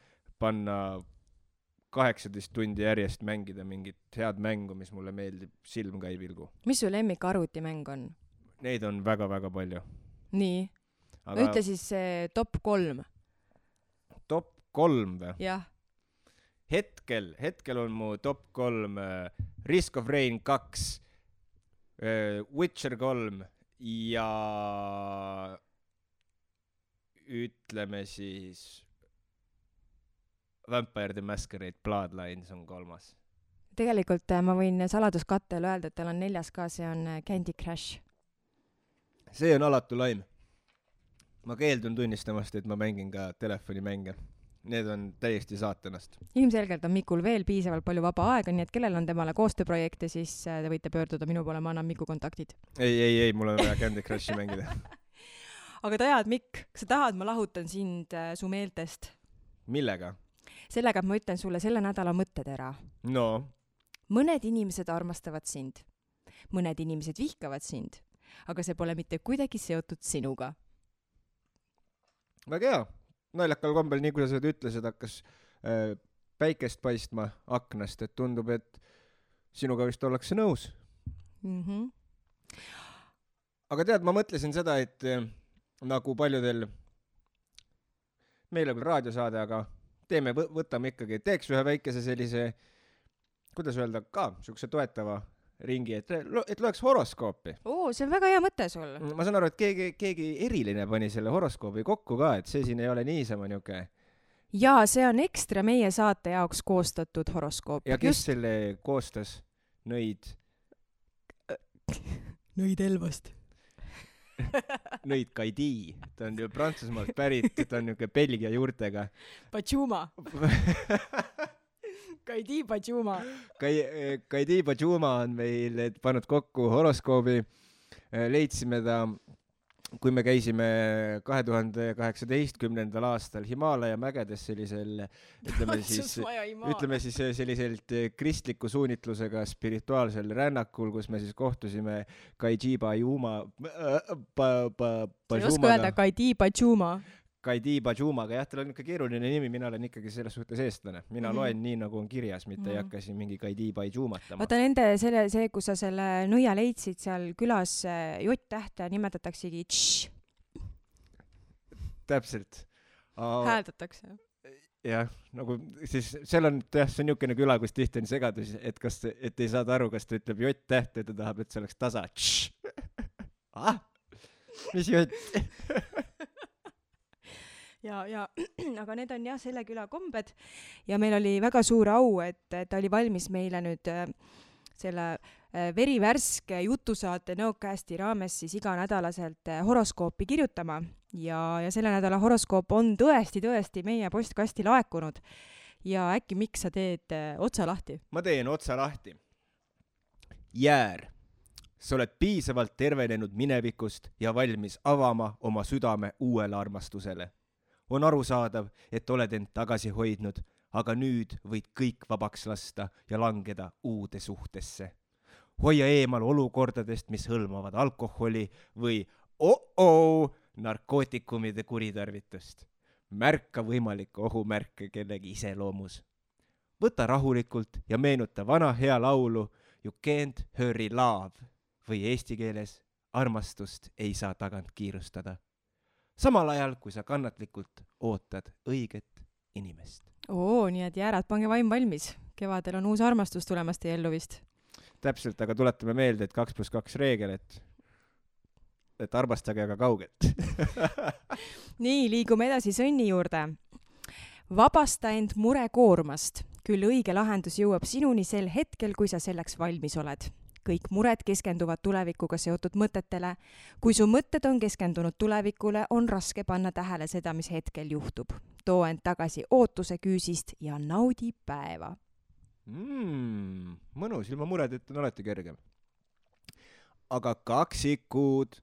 panna 18 tundi järjest mängida mingit head mängu, mis mulle meeldib, silm ka ei pilgu. Mis su lemmik arvutimäng on? Neid on väga-väga palju. Nii? Aga ütle siis top 3. Top 3 või? Jah. Hetkel on mu top 3 Risk of Rain 2, Witcher 3 ja ütleme siis Vampire the Masquerade Bloodlines on 3. Tegelikult ma võin saladuskattel öelda, et tal on 4. ka, see on Candy Crush. See on alatu laim. Ma keeldun tunnistamast, et ma mängin ka telefonimänge. Need on täiesti saatanast. Ilmselgelt on Mikul veel piisavalt palju vaba aega, nii et kellel on temale koostööprojekte, siis te võite pöörduda minu poole, ma annan Miku kontaktid. Ei, mul on vaja Candy Crushi mängida. Aga tead, Mikk, sa tahad, ma lahutan sind su meeltest. Millega? Sellega, et ma ütlen sulle selle nädala mõttetera. No? Mõned inimesed armastavad sind. Mõned inimesed vihkavad sind. Aga see pole mitte kuidagi seotud sinuga. Väga hea. Naljakal kombel, nii kui sa seda ütlesid, hakkas päikest paistma aknast, et tundub, et sinuga vist ollakse nõus. Aga tead, ma mõtlesin seda, et nagu paljudel, meil on küll raadiosaade, aga võtame ikkagi, teeks ühe väikese sellise, kuidas öelda, ka niisuguse toetava ringi, et loeks horoskoopi. See on väga hea mõte sul. Ma saan aru, et keegi eriline pani selle horoskoobi kokku ka, et see siin ei ole niisama niuke. Jaa, see on ekstra meie saate jaoks koostatud horoskoop. Ja kes selle koostas? Nõid Elvast. Nõid Kaidi. Ta on ju Prantsusmaalt pärit, ta on niuke Belgia juurtega. Pachuma. Kaidi Pachuma. Kaidi Pachuma on meil pannud kokku horoskoobi. Leidsime ta kui me käisime 2018. aastal Himaalaja mägedes sellisel, ütleme siis selliselt kristliku suunitlusega spirituaalsel rännakul, kus me siis kohtusime Kaidi Bajumaga, jah, tal on ikka keeruline nimi, mina olen ikkagi selles suhtes eestlane. Mina loen nii, nagu on kirjas, mitte ei hakka siin mingi Kaidi Bajumatama. Vaata see, kus sa selle nõia leidsid seal külas J-tähte nimetataksegi tš. Täpselt. Hääldatakse. Jah, nagu siis seal on, jah, see on niisugune küla, kus tihti on segadus, et ei saada aru, kas ta ütleb J-tähte ja ta tahab, et see oleks tasa. Mis J? Ja aga need on jah selle küla kombed ja meil oli väga suur au, et ta oli valmis meile nüüd selle verivärske jutusaate Nõocasti raames siis iganädalaselt horoskoopi kirjutama ja selle nädala horoskoop on tõesti meie postkasti laekunud ja äkki miks sa teed otsa lahti? Ma teen otsa lahti. Jäär, sa oled piisavalt tervenenud minevikust ja valmis avama oma südame uuele armastusele. On arusaadav, et oled end tagasi hoidnud, aga nüüd võid kõik vabaks lasta ja langeda uude suhtesse. Hoia eemal olukordadest, mis hõlmavad alkoholi või narkootikumide kuritarvitust. Märka võimalikke ohumärke kellegi iseloomus. Võta rahulikult ja meenuta vana hea laulu You can't hurry love või eesti keeles armastust ei saa tagant kiirustada. Samal ajal, kui sa kannatlikult ootad õiget inimest. Nii et jäärad, pange vaim valmis. Kevadel on uus armastus tulemas teie ellu vist. Täpselt, aga tuletame meelde, et 2+2 reegel, et armastage aga kaugelt. Nii, liigume edasi sõnni juurde. Vabasta end murekoormast. Küll õige lahendus jõuab sinuni sel hetkel, kui sa selleks valmis oled. Kõik mured keskenduvad tulevikuga seotud mõtetele. Kui su mõtted on keskendunud tulevikule, on raske panna tähele seda, mis hetkel juhtub. Too end tagasi ootuse küüsist ja naudi päeva. Mõnus, ilma muredeta on alati kergem. Aga kaksikud,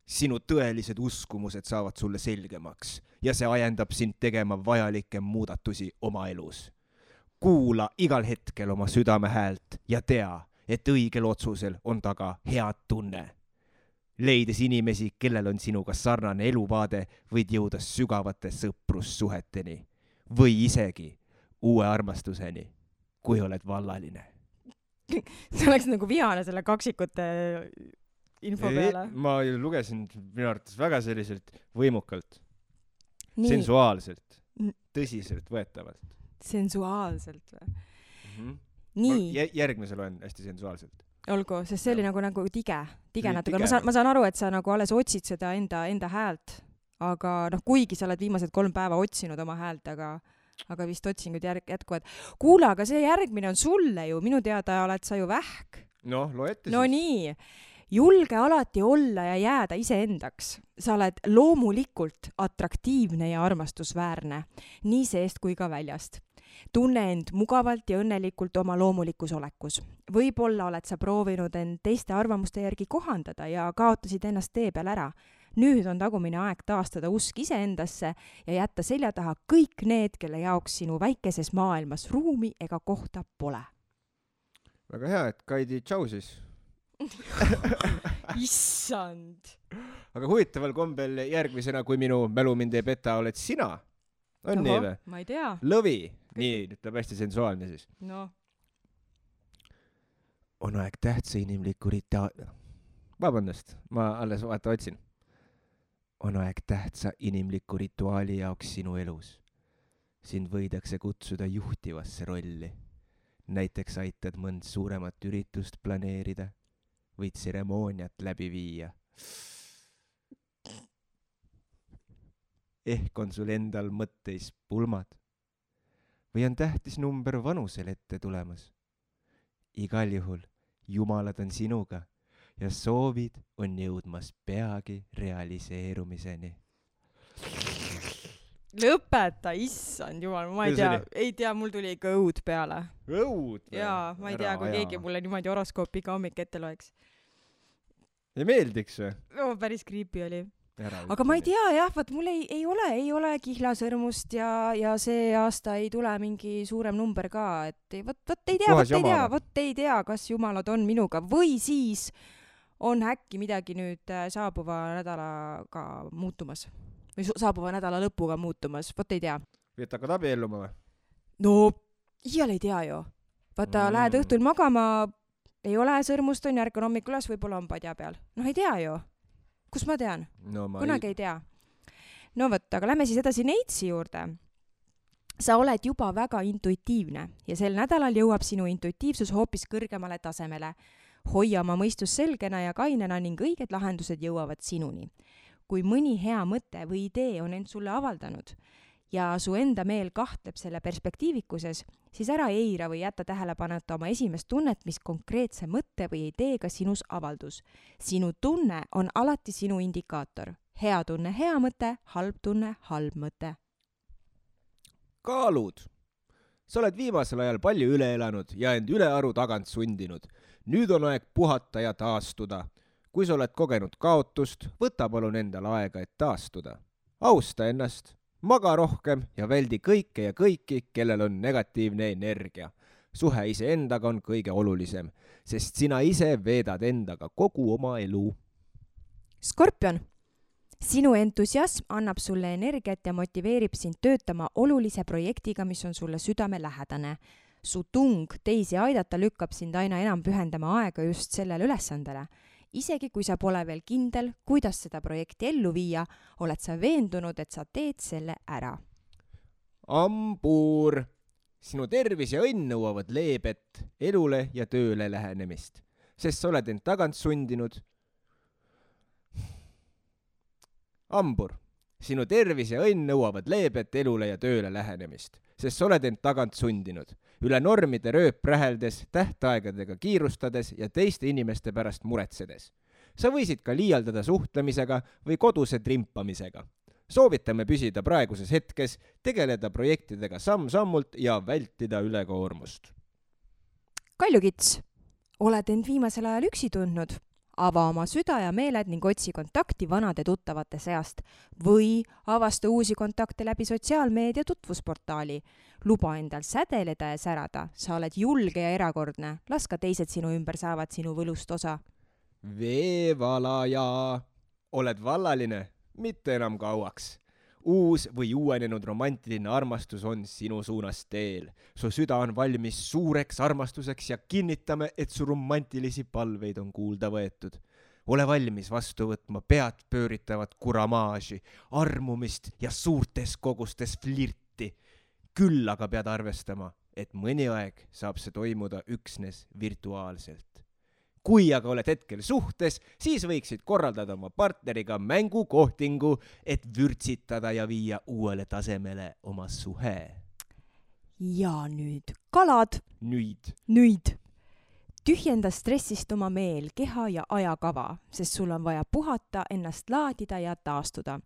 sinu tõelised uskumused saavad sulle selgemaks ja see ajendab sind tegema vajalikke muudatusi oma elus. Kuula igal hetkel oma südame häält ja tea, et õigel otsusel on taga head tunne. Leides inimesi, kellel on sinuga sarnane eluvaade, võid jõuda sügavate sõprussuheteni või isegi uue armastuseni, kui oled vallaline. See oleks nagu vihane selle kaksikute info peale. Ma lugesin minu arvates väga selliselt võimukalt, sensuaalselt, tõsiselt võetavalt. Sensuaalselt või? Nii. Järgmise loen hästi sensuaalselt. Olgu, sest see oli nagu tige natuke. Ma saan aru, et sa nagu alles otsid seda enda häält, aga kuigi sa oled viimased 3 päeva otsinud oma häält, aga vist otsingud jätkuvad. Kuule, aga see järgmine on sulle ju, minu teada oled sa ju vähk. Loe ette siis. No nii, julge alati olla ja jääda iseendaks. Sa oled loomulikult atraktiivne ja armastusväärne, nii seest kui ka väljast. Tunne end mugavalt ja õnnelikult oma loomulikus olekus. Võib-olla oled sa proovinud end teiste arvamuste järgi kohandada ja kaotasid ennast tee peal ära. Nüüd on tagumine aeg taastada usk iseendasse ja jätta selja taha kõik need, kelle jaoks sinu väikeses maailmas ruumi ega kohta pole. Väga hea, et Kaidi tšau siis. Issand! Aga huvitaval kombel järgmisena, kui minu mälu mind ei peta, oled sina. On nii või? Ma ei tea. Lõvi. Nii, ütleb hästi sensuaalne siis. On aeg tähtsa inimliku Vabandust, ma alles otsin. On aeg tähtsa inimliku rituaali jaoks sinu elus. Sind võidakse kutsuda juhtivasse rolli. Näiteks aitad mõnd suuremat üritust planeerida või tseremooniat läbi viia. Ehk on sul endal mõtteis pulmad. Või on tähtis number vanusel ette tulemas. Igal juhul jumalad on sinuga ja soovid on jõudmas peagi realiseerumiseni. Lõpeta, issand jumal, ma ei tea, mul tuli ikka õud peale. Õud? Jaa, ma ei tea, kui keegi mulle niimoodi horoskoopi iga hommik ette loeks. Ei meeldiks või? Päris creepy oli. aga ma ei tea jah, vaat mul ei ole kihlasõrmust ja see aasta ei tule mingi suurem number ka, et vot ei tea, kas jumalad on minuga või siis on äkki midagi nüüd saabuva nädalaga muutumas või saabuva nädala lõpuga muutumas, vot ei tea. Või et hakkad abielluma või? No, iial ei tea ju. Vaata, lähed õhtul magama, ei ole sõrmust, on järg on hommikul üles, võib-olla on padja peal. Noh, ei tea ju. Kus ma tean? No, kunagi ei tea. No võt, aga lähme siis edasi Neitsi juurde. Sa oled juba väga intuitiivne ja sel nädalal jõuab sinu intuitiivsus hoopis kõrgemale tasemele. Hoia oma mõistus selgena ja kainena ning õiged lahendused jõuavad sinuni. Kui mõni hea mõte või idee on end sulle avaldanud ja su enda meel kahtleb selle perspektiivikuses, siis ära eira või jätta tähelepaneta oma esimest tunnet, mis konkreetse mõtte või ideega sinus avaldus. Sinu tunne on alati sinu indikaator. Hea tunne, hea mõte, halb tunne, halb mõte. Kaalud. Sa oled viimasel ajal palju üle elanud ja end ülearu tagant sundinud. Nüüd on aeg puhata ja taastuda. Kui sa oled kogenud kaotust, võta palun endal aega, et taastuda. Austa ennast. Maga rohkem ja väldi kõike ja kõiki, kellel on negatiivne energia. Suhe iseendaga on kõige olulisem, sest sina ise veedad endaga kogu oma elu. Skorpion. Sinu entusiasm annab sulle energiat ja motiveerib sind töötama olulise projektiga, mis on sulle südamelähedane. Su tung teisi aidata lükkab sind aina enam pühendama aega just sellele ülesandele. Isegi kui sa pole veel kindel, kuidas seda projekti ellu viia, oled sa veendunud, et sa teed selle ära. Ambuur. Sinu tervis ja õnn nõuavad leebet, elule ja tööle lähenemist, sest sa oled end tagant sundinud. Ambur. Sinu tervis ja õnn nõuavad leebet, elule ja tööle lähenemist, sest sa oled end tagant sundinud. Üle normide rööp räheldes, tähtaegadega kiirustades ja teiste inimeste pärast muretsedes. Sa võisid ka liialdada suhtlemisega või koduse trimpamisega. Soovitame püsida praeguses hetkes, tegeleda projektidega samm-sammult ja vältida ülekoormust. Kaljukits. Oled end viimasel ajal üksi tundnud? Ava oma süda ja meeled ning otsi kontakti vanade tuttavate seast või avasta uusi kontakte läbi sotsiaalmeedia tutvusportaali. Luba endal sädeleda ja särada. Sa oled julge ja erakordne. Las ka teised sinu ümber saavad sinu võlust osa. Veevalaja. Oled vallaline, mitte enam kauaks. Uus või uuenenud romantiline armastus on sinu suunas teel. Su süda on valmis suureks armastuseks ja kinnitame, et su romantilisi palveid on kuulda võetud. Ole valmis vastu võtma pead pööritavat kuramaaži, armumist ja suurtes kogustes flirti. Küll aga pead arvestama, et mõni aeg saab see toimuda üksnes virtuaalselt. Kui aga oled hetkel suhtes, siis võiksid korraldada oma partneriga mängukohtingu, et vürtsitada ja viia uuele tasemele oma suhe. Ja nüüd kalad. Nüüd. Tühjenda stressist oma meel, keha ja ajakava, sest sul on vaja puhata, ennast laadida ja taastuda.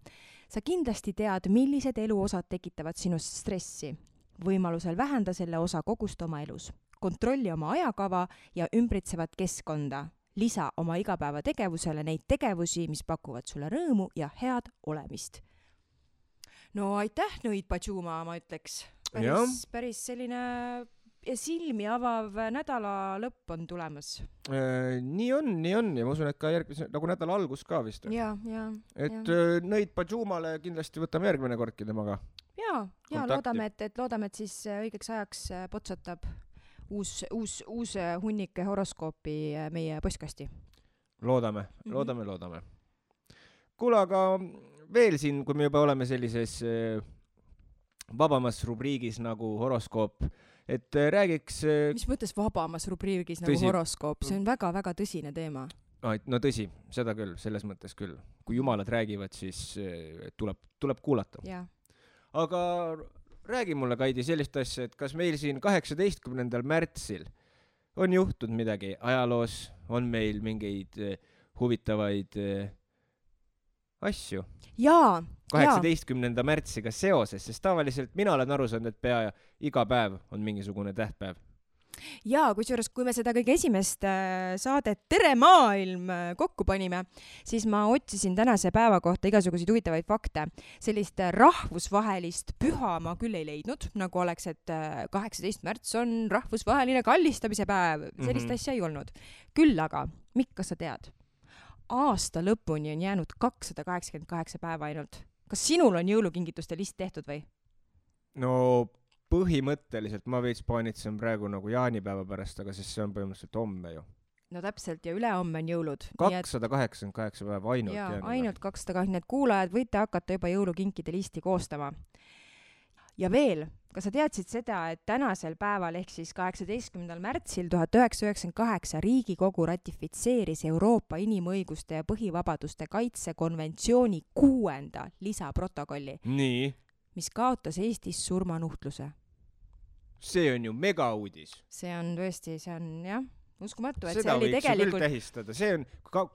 Sa kindlasti tead, millised eluosad tekitavad sinust stressi. Võimalusel vähenda selle osa kogust oma elus. Kontrolli oma ajakava ja ümbritsevat keskkonda. Lisa oma igapäeva tegevusele neid tegevusi, mis pakuvad sulle rõõmu ja head olemist. No aitäh, Nõid Padžuma, ma ütleks. Päris selline silmi avav nädala lõpp on tulemas. Nii on ja ma usun, et ka järgmise nagu nädala algus ka vist. Ja. Nõid Padžumale kindlasti võtame järgmine kordki temaga. Ja loodame, et siis õigeks ajaks potsatab uus hunnike horoskoopi meie postkasti. Loodame. Kuule, aga veel siin, kui me juba oleme sellises vabamas rubriigis nagu horoskoop, et räägiks... Mis mõttes vabamas rubriigis nagu horoskoop? See on väga-väga tõsine teema. No tõsi, seda küll, selles mõttes küll. Kui jumalad räägivad, siis tuleb kuulata. Ja. Aga... Räägi mulle, Kaidi, sellist asja, et kas meil siin 18. märtsil on juhtunud midagi ajaloos, on meil mingeid huvitavaid asju? 18. märtsiga seoses, sest tavaliselt mina olen aru saanud, et pea iga päev on mingisugune tähtpäev. ja kusjuures, kui me seda kõige esimest saadet Tere maailm kokku panime, siis ma otsisin tänase päeva kohta igasuguseid huvitavaid fakte. Sellist rahvusvahelist püha ma küll ei leidnud, nagu oleks, et 18. märts on rahvusvaheline kallistamise päev. Sellist asja ei olnud. Küll aga, Mikk, kas sa tead? Aasta lõpuni on jäänud 288 päeva ainult. Kas sinul on jõulukingituste list tehtud või? No põhimõtteliselt ma veits paanitsen praegu nagu jaanipäeva pärast, aga siis see on põhimõtteliselt homme ju. No täpselt, ja ülehomme on jõulud. 288 päeva ainult jäänud. Jaa, ainult 280, need kuulajad võite hakata juba jõulukinkide listi koostama. Ja veel, kas sa teadsid seda, et tänasel päeval ehk siis 18. märtsil 1998 Riigikogu ratifitseeris Euroopa inimõiguste ja põhivabaduste kaitse konventsiooni 6. lisaprotokolli, Nii, mis kaotas Eestis surmanuhtluse. see on ju megauudis. See on tõesti, see on jah, uskumatu, et Seda see oli võiks ju küll tegelikult... tähistada. See on,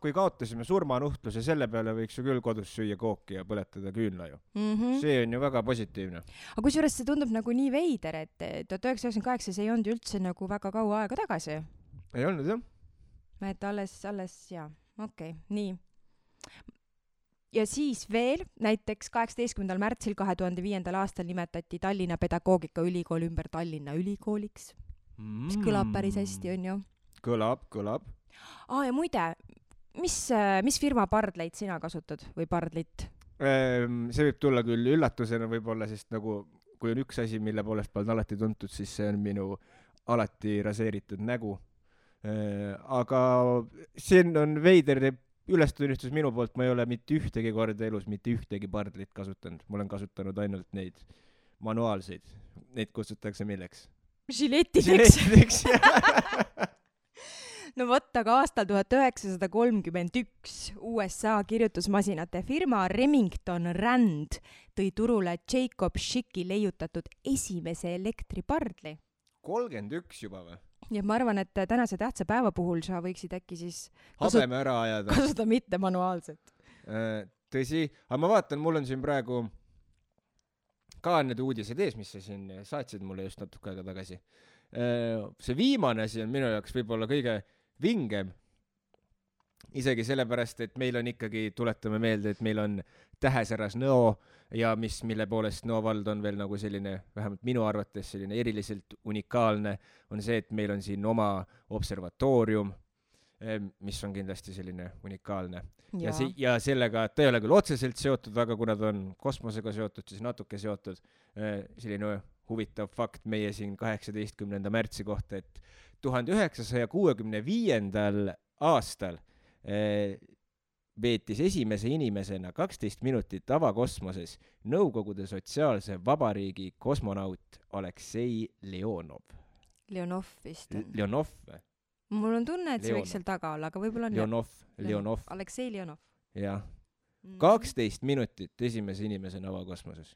kui kaotasime surmanuhtluse, selle peale võiks ju küll kodus süüa kooki ja põletada küünla ju. See on ju väga positiivne. Aga kusjuures see tundub nagu nii veider, et 1998 see ei olnud üldse nagu väga kaua aega tagasi. Ei olnud jah? Et alles, jaa, okei, nii. Ja siis veel, näiteks 18. märtsil 2005. aastal nimetati Tallinna Pedagoogikaülikool ümber Tallinna ülikooliks, mis kõlab päris hästi, on ju? Kõlab. Ja muide, mis firma pardleid sina kasutad või pardlit? See võib tulla küll üllatusena võib-olla, sest nagu, kui on üks asi, mille poolest pole alati tuntud, siis see on minu alati raseeritud nägu. Aga see on veider ülestunnistus minu poolt, ma ei ole mitte ühtegi korda elus mitte ühtegi pardlit kasutanud. Ma olen kasutanud ainult neid manuaalseid. Neid kutsutakse milleks? Žiletideks. No vot, aga aastal 1931 USA kirjutusmasinate firma Remington Rand tõi turule Jacob Schicki leiutatud esimese elektripardli. 31 juba või? Ja ma arvan, et tänase tähtsa päeva puhul sa võiksid äkki siis habeme ära ajada. Kasuta mitte manuaalselt. Tõsi, aga ma vaatan, mul on siin praegu ka need uudised ees, mis sa siin saatsid mulle just natuke aega tagasi. See viimane asi on minu jaoks võib-olla kõige vingem. Isegi sellepärast, et meil on ikkagi, tuletame meelde, et meil on Tähesäras Nõo ja mille poolest Nõo vald on veel nagu selline, vähemalt minu arvates selline eriliselt unikaalne, on see, et meil on siin oma observatoorium, mis on kindlasti selline unikaalne. Ja sellega, ta ei ole küll otseselt seotud, aga kuna ta on kosmosega seotud, siis natuke seotud. Selline huvitav fakt meie siin 18. märtsi kohta, et 1965. aastal veetis esimese inimesena 12 minutit avakosmoses Nõukogude Sotsiaalse Vabariigi kosmonaut Aleksei Leonov. Leonov vist on. Leonov või? Mul on tunne, et see võiks seal taga olla, aga võib-olla on Leonov. Aleksei Leonov. Jah. 12 minutit esimese inimesena avakosmoses.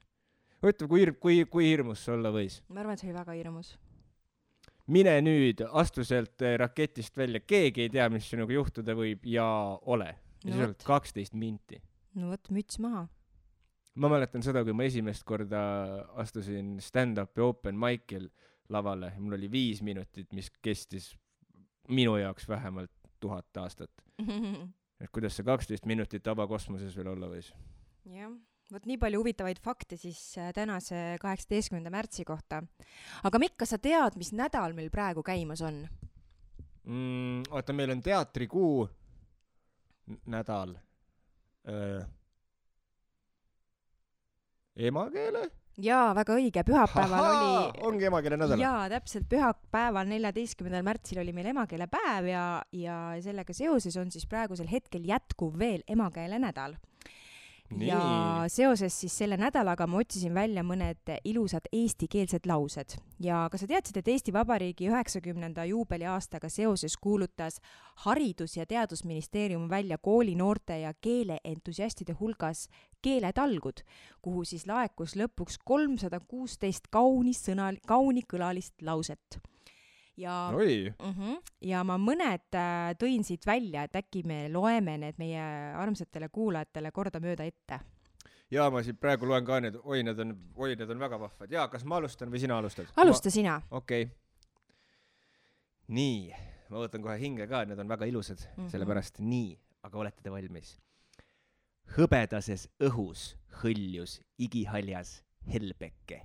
Võtta, kui hirmus see olla võis? Ma arvan, et see oli väga hirmus. Mine nüüd, astu sealt raketist välja, keegi ei tea, mis sinuga juhtuda võib ja ole. Ja see on 12 minti. No võt, müts maha. Ma mäletan seda, kui ma esimest korda astusin stand-upi open mic'il lavale. Mul oli 5 minutit, mis kestis minu jaoks vähemalt 1000 aastat. Et kuidas see 12 minutit avakosmoses veel olla võis? Jah. Võt nii palju huvitavaid fakte siis tänase 18. märtsi kohta. Aga Mikk, kas sa tead, mis nädal meil praegu käimas on? Oota, meil on teatrikuu nädal. Emakeele? Jaa, väga õige. Pühapäeval oli... Ongi emakeele nädal? Jaa, täpselt. Pühapäeval 14. märtsil oli meil emakeele päev ja sellega seoses on siis praegusel hetkel jätkuv veel emakeele nädal. Nii. Ja seoses siis selle nädalaga ma otsisin välja mõned ilusad eestikeelsed laused. Ja kas sa teadsid, et Eesti Vabariigi 90. juubeli aastaga seoses kuulutas Haridus- ja Teadusministeerium välja kooli noorte ja keeleentusiastide hulgas keeletalgud, kuhu siis laekus lõpuks 316 kauni kõlalist lauset. Ja ma mõned tõin siit välja, et äkki me loeme need meie armsatele kuulajatele kordamööda ette. Jaa, ma siit praegu loen ka need, need on väga vahvad. Jaa, kas ma alustan või sina alustad? Alusta sina. Okei. Nii, ma võtan kohe hinge ka, need on väga ilusad, sellepärast nii, aga olete te valmis? Hõbedases õhus hõljus igihaljas helbeke.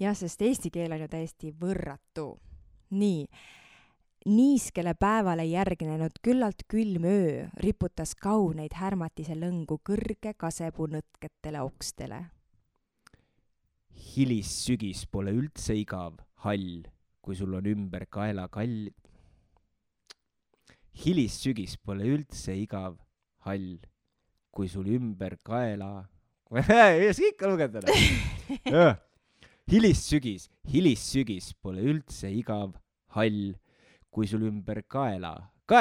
Jah, sest eesti keel on ju täiesti võrratu. Nii, niiskele päevale järgnenud küllalt külm öö riputas kauneid härmatise lõngu kõrge kasepuu nõtketele okstele. Hilis sügis pole üldse igav, hall, kui sul on ümber kaela kall. Hilis sügis pole üldse igav, hall, kui sul ümber kaela... ei saa ikka lugeda. Hilis sügis pole üldse igav, hall, kui sul ümber kaela. Ma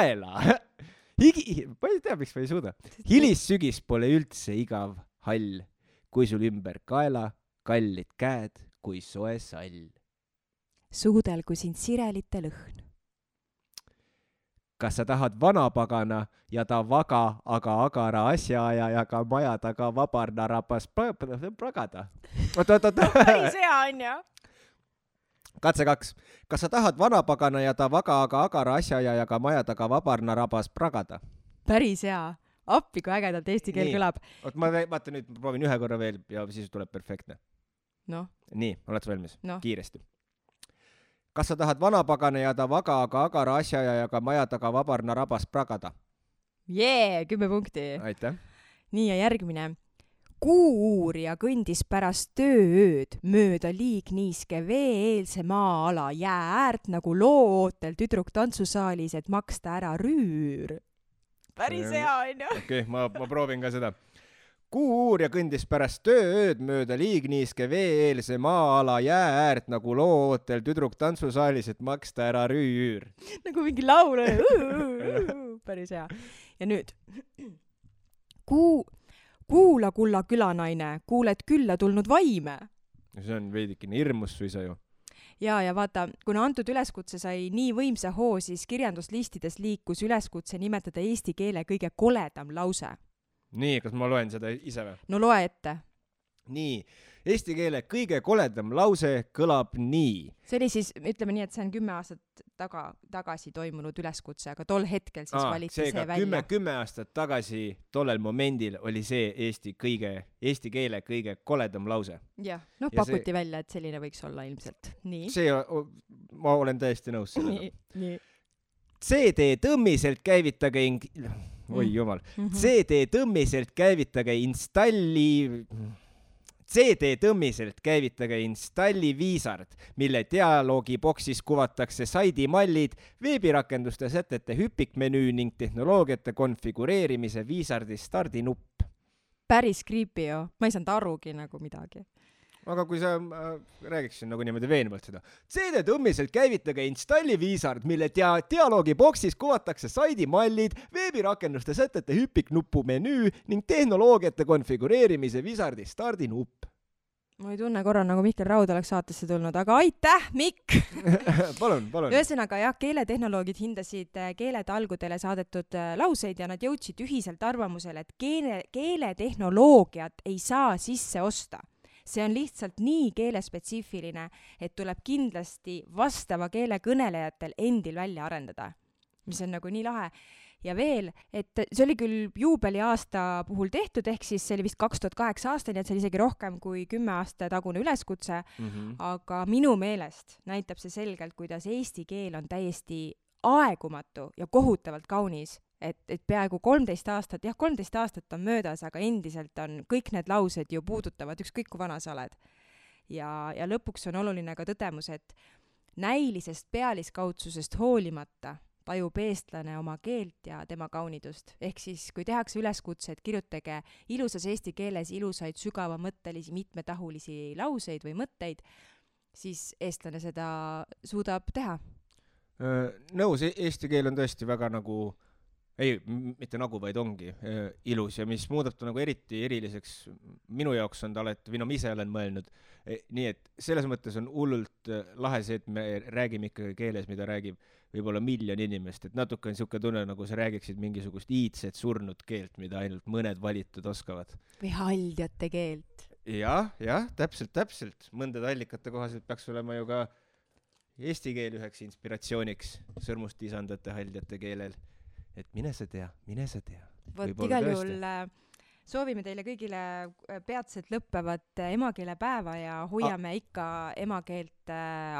ei tea, miks ma ei suuda. Hilis sügis pole üldse igav, hall, kui sul ümber kaela, kallid käed kui soe sall. Suudel kui sind sirelite lõhn. Kas sa tahad vanapagana ja ta vaga, aga agara asjaajajaga maja taga vabarna rabas pragada? Päris hea on ju. Katse 2. Kas sa tahad vanapagana ja ta vaga, aga agara asjaajajaga maja taga vabarna rabas pragada? Päris hea. Appi, kui ägedalt eesti keel kõlab. Ma vaata nüüd, proovin ühe korra veel ja siis tuleb perfektne. No. Nii, oled valmis? No. Kiiresti. Kas sa tahad vanapagana ja ta vaga, aga agara asjaajajaga maja taga vabarna rabas pragada? 10 punkti. Aitäh. Nii ja järgmine. Kuu-uurija kõndis pärast tööööd mööda liigniiske vee-eelse maa-ala jää äärt nagu loo-ootel tüdruk tantsusaalis, et maksta ära rüür. Päris hea on ju. Okei, ma proovin ka seda. Kuu-uurija kõndis pärast tööööd mööda liigniiske vee-eelse maa-ala jää äärt nagu loo-ootel tüdruk tantsusaalis, et maksta ära rüür. Nagu mingi laul. Päris hea. Ja nüüd. Kuula, kulla külanaine, kuuled külla tulnud vaime. See on veidikene hirmus suisa ju. Ja vaata, kuna antud üleskutse sai nii võimsa hoo, siis kirjanduslistides liikus üleskutse nimetada eesti keele kõige koledam lause. Nii, kas ma loen seda ise või? No loe ette. Nii, eesti keele kõige koledam lause kõlab nii. See oli siis, ütleme nii, et see on 10 aastat tagasi toimunud üleskutse, aga tol hetkel siis valiti see välja. 10 aastat tagasi tollel momendil oli see eesti keele kõige koledam lause. Jah, pakuti välja, et selline võiks olla ilmselt. Nii. Ma olen täiesti nõus sellega. Nii. CD tõmmiselt käivitage Oi jumal. CD tõmmiselt käivitage installi viisard, mille dialoogiboksis kuvatakse saidimallid, veebirakenduste sätete hüpikmenüü ning tehnoloogiate konfigureerimise viisardi stardinupp. Päris creepy ju. Ma ei saanud arugi nagu midagi. Aga kui sa räägiksin nagu niimoodi veenvalt seda. CD tõmmiselt käivitage installi viisard, mille dialoogiboksis kuvatakse saidimallid, veebirakenduste sätete hüpiknuppu menüü ning tehnoloogiate konfigureerimise viisardi stardinupp. Ma ei tunne korra nagu Mihkel Raud oleks saatesse tulnud, aga aitäh, Mikk! Palun. Ühesõnaga jah, keeletehnoloogid hindasid keeletalgudele saadetud lauseid ja nad jõudsid ühiselt arvamusele, et keeletehnoloogiat ei saa sisse osta. See on lihtsalt nii keelespetsiifiline, et tuleb kindlasti vastava keele kõnelejatel endil välja arendada, mis on nagu nii lahe. Ja veel, et see oli küll juubeli aasta puhul tehtud, ehk siis see oli vist 2008 aastani, et see oli isegi rohkem kui 10 aasta tagune üleskutse, aga minu meelest näitab see selgelt, kuidas eesti keel on täiesti aegumatu ja kohutavalt kaunis, et peaaegu 13 aastat on möödas, aga endiselt on kõik need laused ju puudutavad ükskõik kui vana sa oled. Ja lõpuks on oluline ka tõdemus, et näilisest pealiskaudsusest hoolimata tajub eestlane oma keelt ja tema kaunidust. Ehk siis, kui tehakse üleskutse, et kirjutage ilusas eesti keeles ilusaid sügavamõttelisi mitmetahulisi lauseid või mõtteid, siis eestlane seda suudab teha. Nõus, eesti keel on tõesti väga nagu mitte nagu, vaid ongi ilus ja mis muudab ta nagu eriti eriliseks minu jaoks on ta alati, või ma ise olen mõelnud, nii et selles mõttes on hullult lahe see, et me räägime ikkagi keeles, mida räägib võib-olla 1 miljon inimest, et natuke on niisugune tunne, nagu sa räägiksid mingisugust iidset surnud keelt, mida ainult mõned valitud oskavad. Või haldjate keelt. Jah, täpselt. Mõndade allikate kohaselt peaks olema ju ka Eesti keel üheks inspiratsiooniks sõrmust isandate haldjate keelel. Et mine sa tea. Vot igal juhul soovime teile kõigile peatselt lõppevat emakeelepäeva ja hoiame ikka emakeelt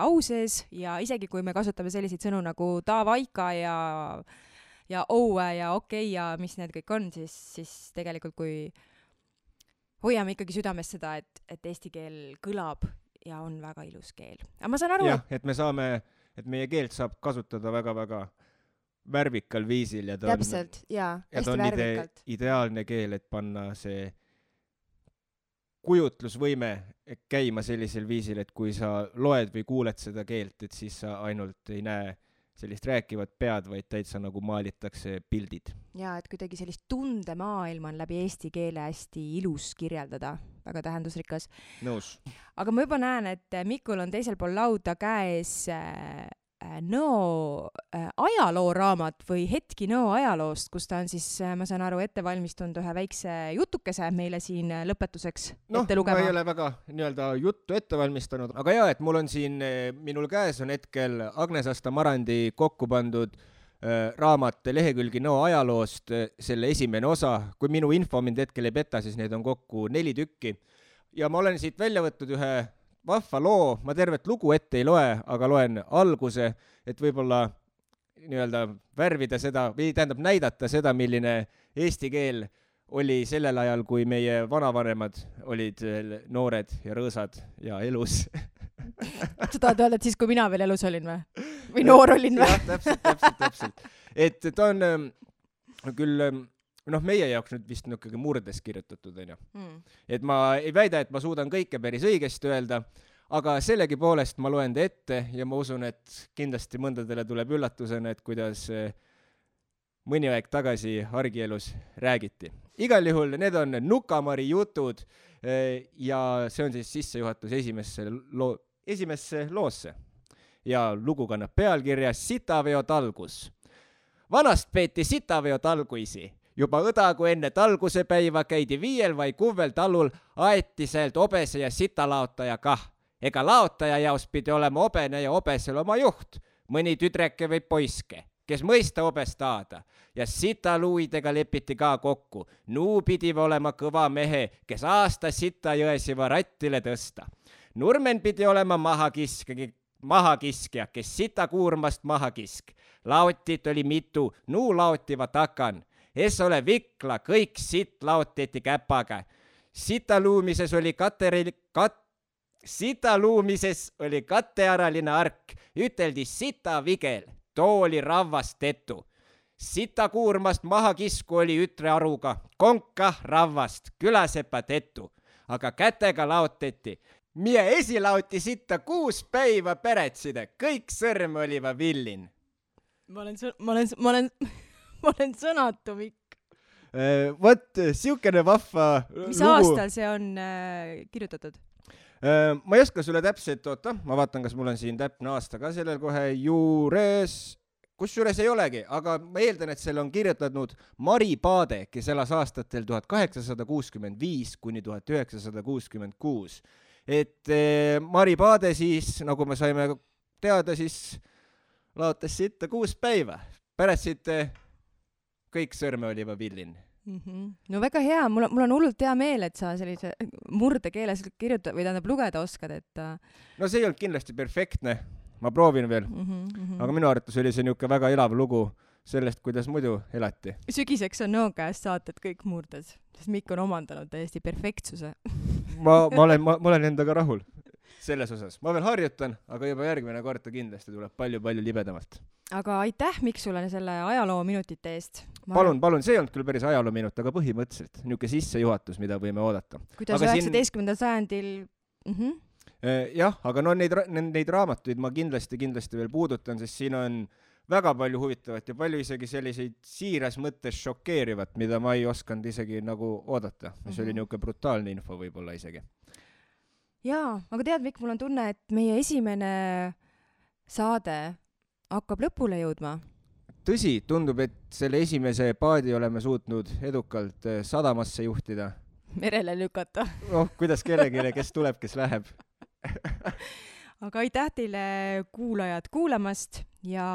au sees ja isegi kui me kasutame selliseid sõnu nagu tavaika ja õue ja okei ja mis need kõik on, siis tegelikult kui hoiame ikkagi südames seda, et eesti keel kõlab ja on väga ilus keel. Aga ma saan aru, et meie keelt saab kasutada väga-väga värvikal viisil ja ta täpselt, hästi värvikalt. Ideaalne keel, et panna see kujutlusvõime käima sellisel viisil, et kui sa loed või kuuled seda keelt, et siis sa ainult ei näe sellist rääkivat pead, vaid täitsa nagu maalitakse pildid. Ja, et kuidagi sellist tundemaailma on läbi eesti keele hästi ilus kirjeldada, väga tähendusrikas. Nõus. Aga ma juba näen, et Mikul on teisel pool lauda käes Nõo ajalooraamat või hetki Nõo ajaloost, kus ta on siis, ma saan aru, ette valmistunud ühe väikse jutukese meile siin lõpetuseks ette lugema. Ma ei ole väga juttu ette valmistanud, aga jaa, et mul on siin, minul käes on hetkel Agnes Asta Marandi kokku pandud raamat lehekülgi Nõo ajaloost, selle esimene osa. Kui minu info mind hetkel ei peta, siis neid on kokku 4 tükki. Ja ma olen siit välja võtnud ühe vahva loo, ma tervet lugu ette ei loe, aga loen alguse, et võib-olla värvida seda, või tähendab näidata seda, milline eesti keel oli sellel ajal, kui meie vanavanemad olid noored ja rõõsad ja elus. Sa tahad öelda, et siis, kui mina veel elus olin või? Või noor olin või? Jah, täpselt. Et ta on küll meie jaoks nüüd vist ikkagi murdes kirjutatud, on ju. Et ma ei väida, et ma suudan kõike päris õigesti öelda, aga sellegi poolest ma loen ta ette ja ma usun, et kindlasti mõndadele tuleb üllatusena, et kuidas mõni aeg tagasi argielus räägiti. Igal juhul need on Nukamari jutud ja see on siis sissejuhatus esimesse loosse. Ja lugu kannab pealkirja Sitaveo talgus. Vanast peeti sitaveo talguisi. Juba õdagu enne talguse päiva käidi 5 või 6 talul aeti sealt obese ja sitalaotaja kah. Ega laotaja jaos pidi olema obene ja obesel oma juht, mõni tüdreke või poiske, kes mõista obest taada. Ja sitaluidega lepiti ka kokku. Nuu pidi olema kõva mehe, kes aasta sita jõesiva rattile tõsta. Nurmen pidi olema mahakiskja, kes sita kuurmast mahakisk. Laotit oli mitu, nuu laotiva takan. Es ole vikla, kõik sitt laoteti käpaga. Sitaluumises oli kattearaline ark, üteldi sita vigel, too oli ravvast tetu. Sita kuurmast mahakisku oli ütre aruga, konka ravvast, külasepa tetu. Aga kätega laoteti. Mie esilauti sitta 6 päiva peretside, kõik sõrm oliva villin. Ma olen sõnatu, Mikk. Vot, siukene vahva Mis aastal see on kirjutatud? Ma ei oska sulle täpselt, ma vaatan, kas mul on siin täpne aasta ka sellel kohe juures. Kusjuures ei olegi, aga ma eeldan, et selle on kirjutanud Mari Paade, kes elas aastatel 1865 kuni 1966. Et Mari Paade siis, nagu me saime teada, siis laotas sitta 6 päiva. Pärast siit kõik sõrme oliva villin. No väga hea, mul on hullult hea meel, et sa sellise murdekeeles kirjutada või tähendab lugeda oskad, et... No see ei olnud kindlasti perfektne, ma proovin veel, aga minu arvates oli see niuke väga elav lugu sellest, kuidas muidu elati. Sügiseks on Nõo käest saated kõik murdes, sest Mikk on omandanud täiesti perfektsuse. ma olen endaga rahul selles osas. Ma veel harjutan, aga juba järgmine kord kindlasti tuleb palju libedamalt. Aga aitäh, Mikk, sulle selle ajaloo minutite eest. Palun, see ei olnud küll päris ajaloo minut, aga põhimõtteliselt niuke sissejuhatus, mida võime oodata. Kuidas aga 19. sajandil... Jah, aga neid raamatuid ma kindlasti veel puudutan, sest siin on väga palju huvitavat ja palju isegi selliseid siiras mõttes šokeerivat, mida ma ei osanud isegi nagu oodata. Mis oli niuke brutaalne info võib-olla isegi. Jaa, aga tead, Mikk, mul on tunne, et meie esimene saade hakkab lõpule jõudma. Tõsi, tundub, et selle esimese paadi oleme suutnud edukalt sadamasse juhtida. Merele lükata. Kuidas kellelegi, kes tuleb, kes läheb. aga aitäh teile kuulajad kuulamast ja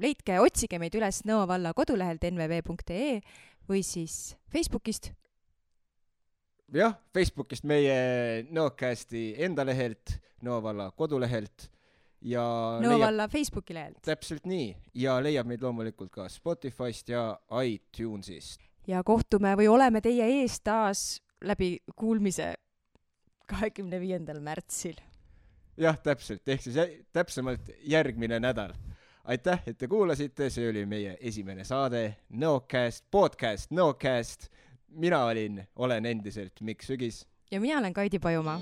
leidke, otsige meid üles Nõo valla kodulehelt nvv.ee või siis Facebookist. Jah, Facebookist meie Nõocasti enda lehelt, Nõo valla kodulehelt ja Nõo valla Facebooki lehelt. Täpselt nii ja leiab meid loomulikult ka Spotify'st ja iTunes'ist. Ja kohtume või oleme teie ees taas läbi kuulmise 25. märtsil. Jah, täpselt, ehk siis täpsemalt järgmine nädal. Aitäh, et te kuulasite, see oli meie esimene saade Nõocast, podcast Nõocast. Mina olen endiselt Mikk Sügis. Ja mina olen Kaidi Pajumaa.